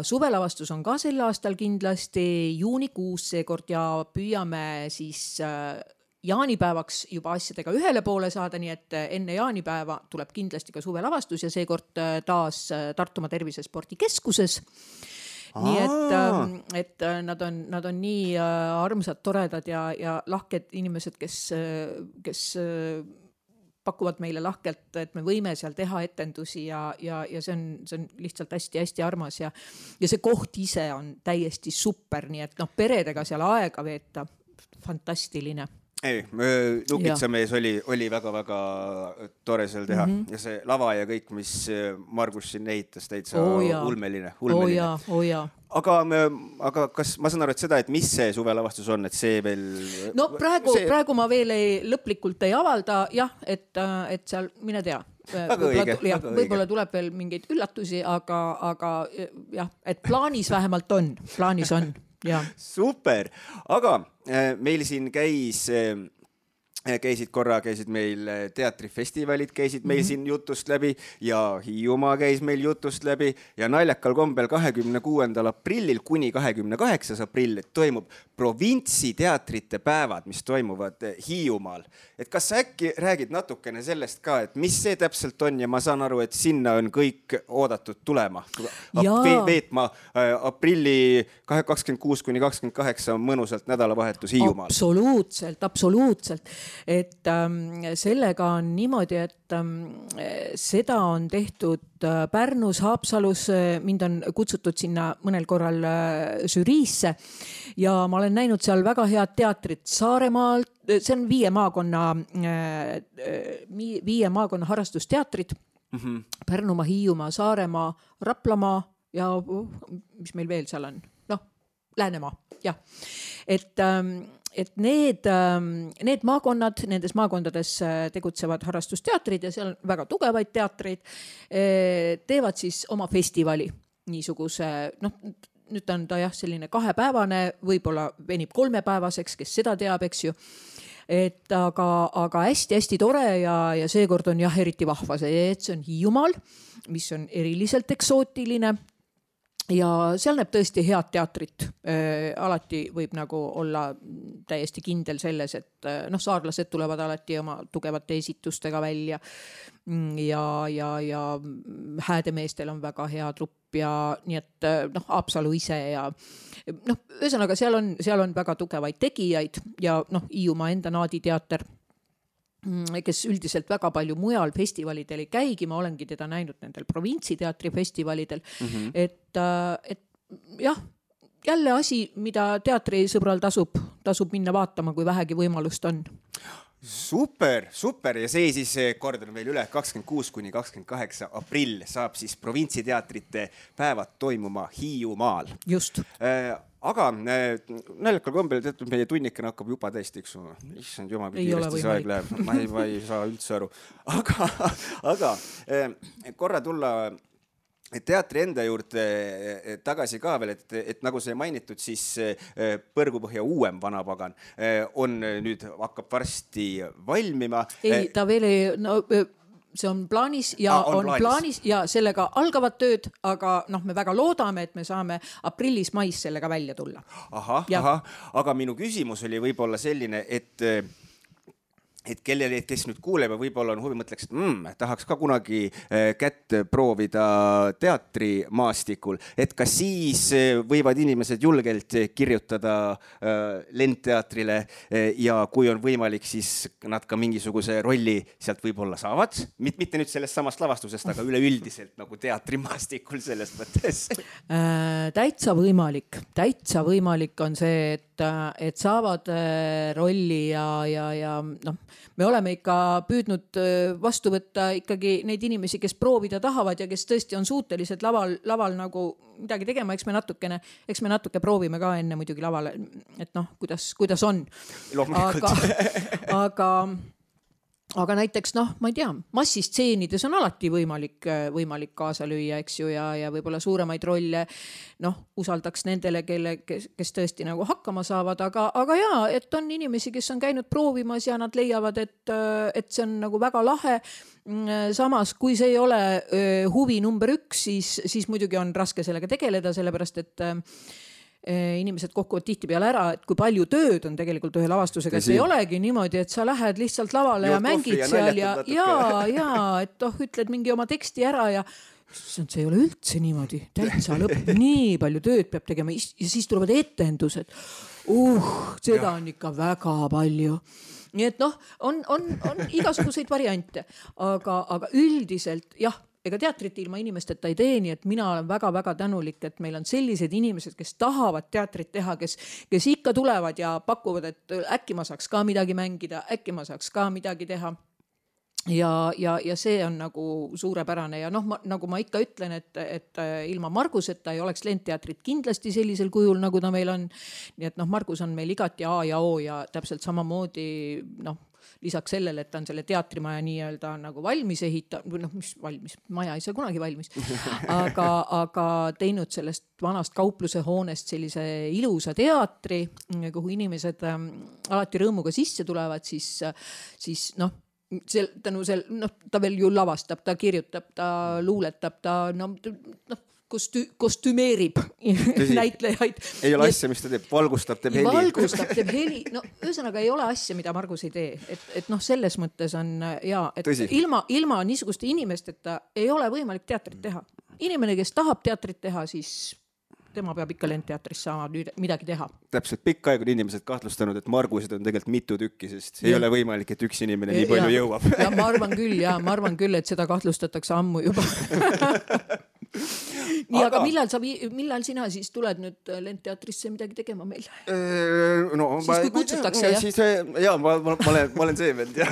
suvelavastus on ka sel aastal kindlasti juunikuus seekord ja püüame siis jaanipäevaks juba asjadega ühele poole saada, nii et enne jaanipäeva tuleb kindlasti ka suvelavastus ja seekord taas Tartumaa Tervisespordikeskuses. Nii et nad on nii armsad, toredad ja lahked inimesed, kes pakuvad meile lahkelt, et me võime seal teha etendusi ja see on lihtsalt hästi armas ja see koht ise on täiesti super, nii et peredega seal aega veeta, fantastiline. Ei, Nukitsamees oli väga-väga tore seal teha ja see lava ja kõik, mis Margus siin ehitas, täitsa ulmeline. Aga kas ma saan aru, et seda, et mis see suvelavastus on, et see veel... No praegu ma veel lõplikult ei avalda, et seal, mine tea. Võib-olla tuleb veel mingeid üllatusi, aga et plaanis vähemalt on. Ja. Super, aga meil siin käis käisid meil teatrifestivalid, käisid meil siin jutust läbi ja Hiiumaa käis meil jutust läbi ja naljakal kombel 26. aprillil kuni 28. aprill toimub provintsiteatrite päevad, mis toimuvad Hiiumaal. Et kas sa äkki räägid natukene sellest ka, et mis see täpselt on ja ma saan aru, et sinna on kõik oodatud tulema. Veetma aprilli 26 kuni 28 mõnusalt nädalavahetus Hiiumaal. Absoluutselt. Et sellega on niimoodi, et seda on tehtud Pärnus, Haapsalus, mind on kutsutud sinna mõnel korral žüriisse ja ma olen näinud seal väga head teatrit Saaremaalt, see on 5 maakonna harrastusteatrid, Pärnumaa, Hiiumaa, Saaremaa, Raplamaa ja mis meil veel seal on? Läänemaa, jah. Et need maakonnad, nendes maakondades tegutsevad harrastusteatrid ja seal on väga tugevaid teatreid, teevad siis oma festivali niisuguse, nüüd on ta jah selline 2-päevane, võib-olla venib 3-päevaseks, kes seda teab, eks ju. Et aga hästi tore ja seekord on jah eriti vahva see, et see on Hiiumaal, mis on eriliselt eksootiline. Ja seal näeb tõesti head teatrit. Alati võib nagu olla täiesti kindel selles, et saarlased tulevad alati oma tugevate esitustega välja ja häädemeestel on väga hea trupp ja nii et Haapsalu ise ja ühesõnaga seal on väga tugevaid tegijaid ja Hiiumaa enda naaditeater, kes üldiselt väga palju mujal festivalidel ei käigi, ma olengi teda näinud nendel provintsiteatri festivalidel, et jah, jälle asi, mida teatrisõbral tasub minna vaatama, kui vähegi võimalust on. Super ja see siis kordan veel üle 26 kuni 28 aprill saab siis provintsiteatrite päevad toimuma Hiiumaal. Just. Aga naljakal kombel teatud meie tunnikene hakkab juba täiesti, eks issand jumal, kui kiiresti see aeg läheb. Ma ei saa üldse aru. Aga korra tulla teatri enda juurde tagasi ka veel, et nagu see mainitud, siis Põrgupõhja uuem Vanapagan on nüüd hakkab varsti valmima. Ei, ta veel ei... see on plaanis ja on plaanis ja sellega algavad tööd, aga me väga loodame, et me saame aprillis-mais sellega välja tulla. Aga minu küsimus oli võib-olla selline, et kellele, kes nüüd kuuleb ja võib-olla on huvi, mõtleks, et tahaks ka kunagi kätt proovida teatrimaastikul, et kas siis võivad inimesed julgelt kirjutada Lendteatrile ja kui on võimalik, siis nad ka mingisuguse rolli sealt võib-olla saavad, mitte nüüd sellest samast lavastusest, aga üleüldiselt nagu teatrimaastikul sellest mõttes. Täitsa võimalik on see, et saavad rolli ja me oleme ikka püüdnud vastu võtta ikkagi neid inimesi, kes proovida tahavad ja kes tõesti on suutelised laval nagu midagi tegema, eks me natuke proovime ka enne muidugi lavale, et kuidas on. Aga näiteks, ma ei tea, massistseenides on alati võimalik kaasa lüüa, eks ju, ja võib-olla suuremaid rolle, usaldaks nendele, kes tõesti nagu hakkama saavad, aga jaa, et on inimesi, kes on käinud proovimas ja nad leiavad, et see on nagu väga lahe. Samas, kui see ei ole huvi number 1, siis muidugi on raske sellega tegeleda, sellepärast, et inimesed kokkuvad tihtipeale ära, et kui palju tööd on tegelikult ühe lavastusega, see ei olegi niimoodi, et sa lähed lihtsalt lavale ja mängid seal ja et ütled mingi oma teksti ära ja see ei ole üldse niimoodi, täitsa lõpp, nii palju tööd peab tegema ja siis tulevad etendused. Seda on ikka väga palju. Nii et on igasuguseid variante, aga üldiselt jah, ega teatrit ilma inimesteta ei tee, nii et mina olen väga-väga tänulik, et meil on sellised inimesed, kes tahavad teatrit teha, kes ikka tulevad ja pakuvad, et äkki ma saaks ka midagi mängida, äkki ma saaks ka midagi teha. Ja see on nagu suurepärane ja nagu ma ikka ütlen, et ilma Marguseta ei oleks Lendteatrit kindlasti sellisel kujul, nagu ta meil on. Nii et Margus on meil igati A ja O ja täpselt samamoodi lisaks sellele, et ta on selle teatrimaja nii-öelda nagu valmis või mis valmis, maja ei saa kunagi valmis, aga teinud sellest vanast kaupluse hoonest sellise ilusa teatri, kuhu inimesed alati rõõmuga sisse tulevad, siis ta veel ju lavastab, ta kirjutab, ta luuletab, ta kostümeerib näitlejaid. Ei ole asja, mis ta teeb, valgustab, teeb heli. No ühesõnaga ei ole asja, mida Margus ei tee. Et selles mõttes on et ilma niisuguste inimesteta ei ole võimalik teatrit teha. Inimene, kes tahab teatrit teha, siis tema peab ikka lendteatris saama midagi teha. Täpselt, pikka aega on inimesed kahtlustanud, et Margused on tegelikult mitu tükki, sest ei ole võimalik, et üks inimene nii palju jõuab. Ja ma arvan küll, et seda kahtlustatakse ammu juba. Nii, aga millal sina siis tuled nüüd lendteatrisse midagi tegema meil? Siis kui kutsutakse, ma olen see vend, jah.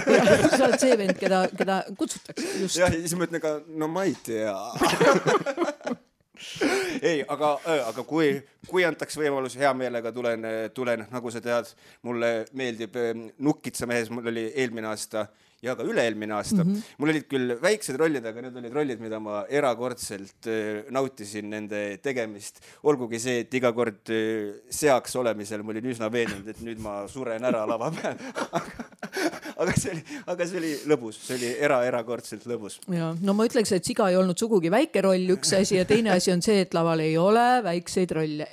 Sa oled see vend, keda kutsutakse, just. Ja siis ma ütlen ka, ma ei tea. Ei, aga kui antaks võimalus, hea meelega tulen, nagu sa tead, mulle meeldib Nukkitsa mehes, mul oli eelmine aasta ja ka üle-eelmine aasta. Mul olid küll väiksed rollid, aga need olid rollid, mida ma erakordselt nautisin nende tegemist. Olgugi see, et iga kord seaks olemisel ma olin üsna veenunud, et nüüd ma suren ära lava peal. Aga see oli lõbus, see oli erakordselt lõbus. Ja, no ma ütleks, et Siga ei olnud sugugi väike roll, üks asi, ja teine asi on see, et laval ei ole väikseid rolle,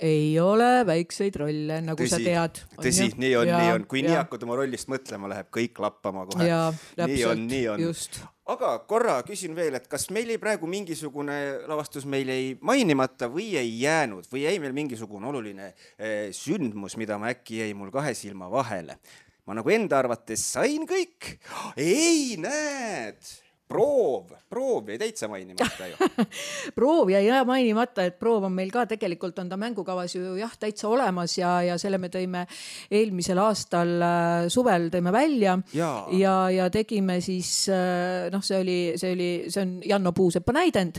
nagu sa tead. Tõsi, nii on. Kui nii hakkad oma rollist mõtlema, läheb kõik lappama kohe. Nii on. Just. Aga korra küsin veel, et kas meil ei praegu mingisugune lavastus meil ei mainimata või ei jäänud või jäi meil mingisugune oluline sündmus, mida ma äkki jäi mul kahe silma vahele. Ma nagu enda arvates sain kõik. Ei, näed! Proov jäi täitsa mainimata ju. Proov jäi mainimata, et proov on meil ka tegelikult on ta mängukavas ju täitsa olemas ja selle me tõime eelmisel aastal suvel tõime välja ja tegime siis, see on Janno Puusepa näidend.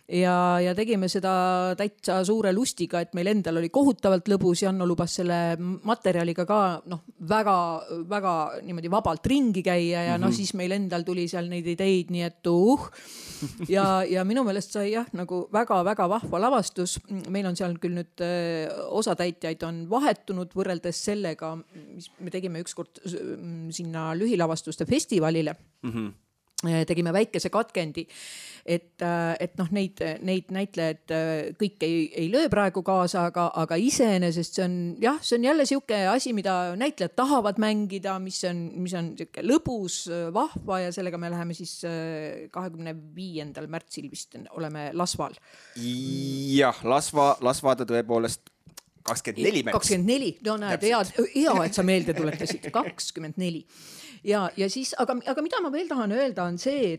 Ja tegime seda täitsa suure lustiga, et meil endal oli kohutavalt lõbus. Janno lubas selle materjaliga ka väga niimoodi vabalt ringi käia ja siis meil endal tuli seal neid ideid, nii et ja minu meelest sai nagu väga vahva lavastus. Meil on seal küll nüüd osatäitjaid on vahetunud võrreldes sellega, mis me tegime ükskord sinna lühilavastuste festivalile. Tegime väikese katkendi, et neid näitlejaid kõik ei löö praegu kaasa, aga iseenesest see on jälle siuke asi, mida näitlejad tahavad mängida, mis on siuke lõbus, vahva ja sellega me läheme siis 25. märtsil vist oleme Lasval. Jah, Lasva ta tõepoolest 24 märts. 24, no näed, hea, et sa meelde tuletasid, 24. Ja siis, aga mida ma veel tahan öelda on see,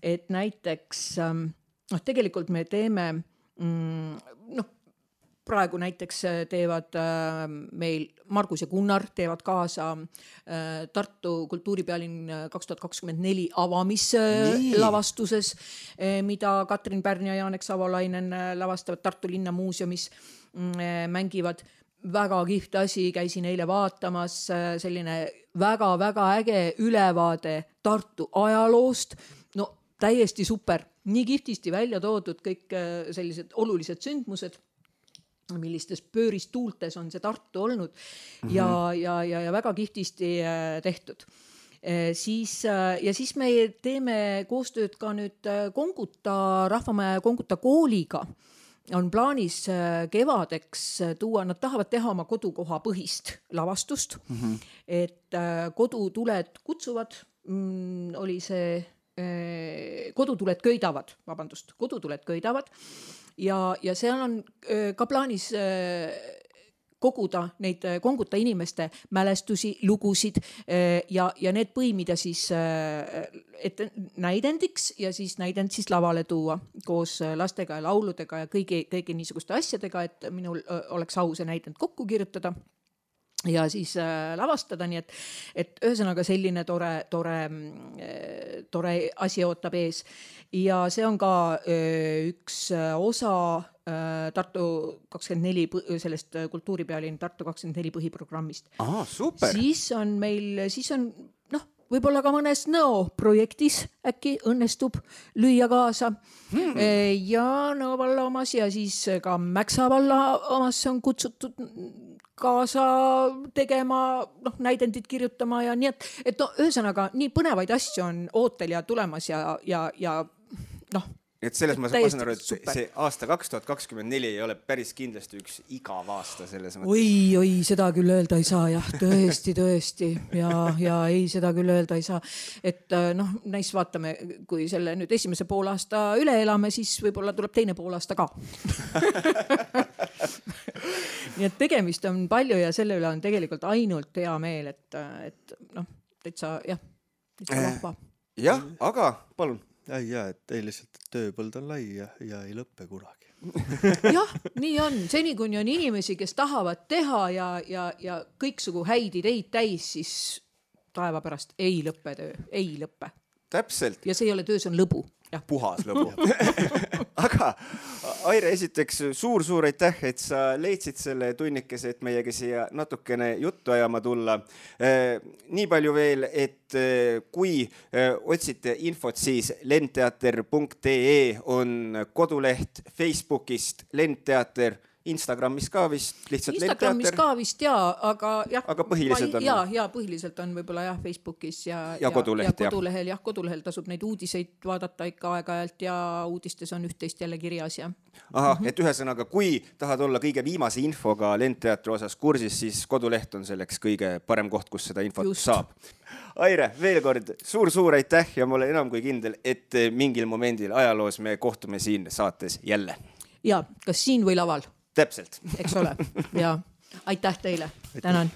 et näiteks tegelikult me teeme praegu näiteks teevad meil Margus ja Gunnar teevad kaasa Tartu kultuuripealinn 2024 avamislavastuses, mida Katrin Pärn ja Jaanek Savolainen lavastavad Tartu linnamuuseumis, mängivad väga kihvt asi, käisin eile vaatamas selline väga äge ülevaade Tartu ajaloost. No täiesti super, nii kihvtisti välja toodud kõik sellised olulised sündmused, millistes pööristuultes on see Tartu olnud ja väga kihvtisti tehtud. Siis me teeme koostööd ka nüüd Konguta, Rahvamaja Konguta kooliga. On plaanis kevadeks tuua, nad tahavad teha oma kodukoha põhist lavastust, et kodutuled kutsuvad, oli see kodutuled köidavad ja seal on ka plaanis koguda neid Konguta inimeste mälestusi, lugusid ja need põimida siis näidendiks ja siis näidend siis lavale tuua koos lastega ja lauludega ja kõigi niisuguste asjadega, et minul oleks au see näidend kokku kirjutada ja siis lavastada, nii et ühesõnaga selline tore asi ootab ees ja see on ka üks osa Tartu 24 sellest kultuuripealinn Tartu 24 põhiprogrammist. Super. Siis on võib-olla ka mõnes Nõo projektis äkki õnnestub lüüa kaasa. Ja Nõo valla omas ja siis ka Mäksa valla omas on kutsutud kaasa tegema, näidendid kirjutama ja nii, et ühesõnaga nii põnevaid asju on ootel ja tulemas ja et selles ma täiesti saan aru, et super. see aasta 2024 ei ole päris kindlasti üks igav aasta selles mõttes. Oi, seda küll öelda ei saa, jah, tõesti ja ei, seda küll öelda ei saa, et näis vaatame, kui selle nüüd esimese poolaasta üle elame, siis võib-olla tuleb teine poolaasta ka. Nii et tegemist on palju ja selle üle on tegelikult ainult hea meel, et täitsa vahva. Jah, aga palun. Ja, et ei lihtsalt tööpõld on lai ja ei lõppe kunagi. Jah, nii on. Seni kuni on inimesi, kes tahavad teha ja kõiksugu häid ideid täis, siis taeva pärast ei lõppe töö, ei lõppe. Täpselt. Ja see ei ole töö, see on lõbu. Ja. Puhas lõbu. Aga Aire, esiteks suur aitäh, et sa leidsid selle tunnikese, et meiega siia natukene juttu ajama tulla. Nii palju veel, et kui otsite infot, siis lendteater.ee on koduleht, Facebookist Lendteater, Instagramis ka vist lihtsalt Instagramis Lendteater. ka vist aga jah. Aga põhiliselt on. Ja põhiliselt on võib-olla jah Facebookis ja koduleht, kodulehel. Jah, kodulehel tasub neid uudiseid vaadata ikka aeg-ajalt ja uudistes on üht-teist jälle kirjas. Ja. Aha, et ühesõnaga, kui tahad olla kõige viimase infoga Lendteatri osas kursis, siis koduleht on selleks kõige parem koht, kus seda infot saab. Aire, veel kord suur aitäh ja ma olen enam kui kindel, et mingil momendil ajaloos me kohtume siin saates jälle. Ja, kas siin või laval? Täpselt. Eks ole. Ja aitäh teile. Tänan.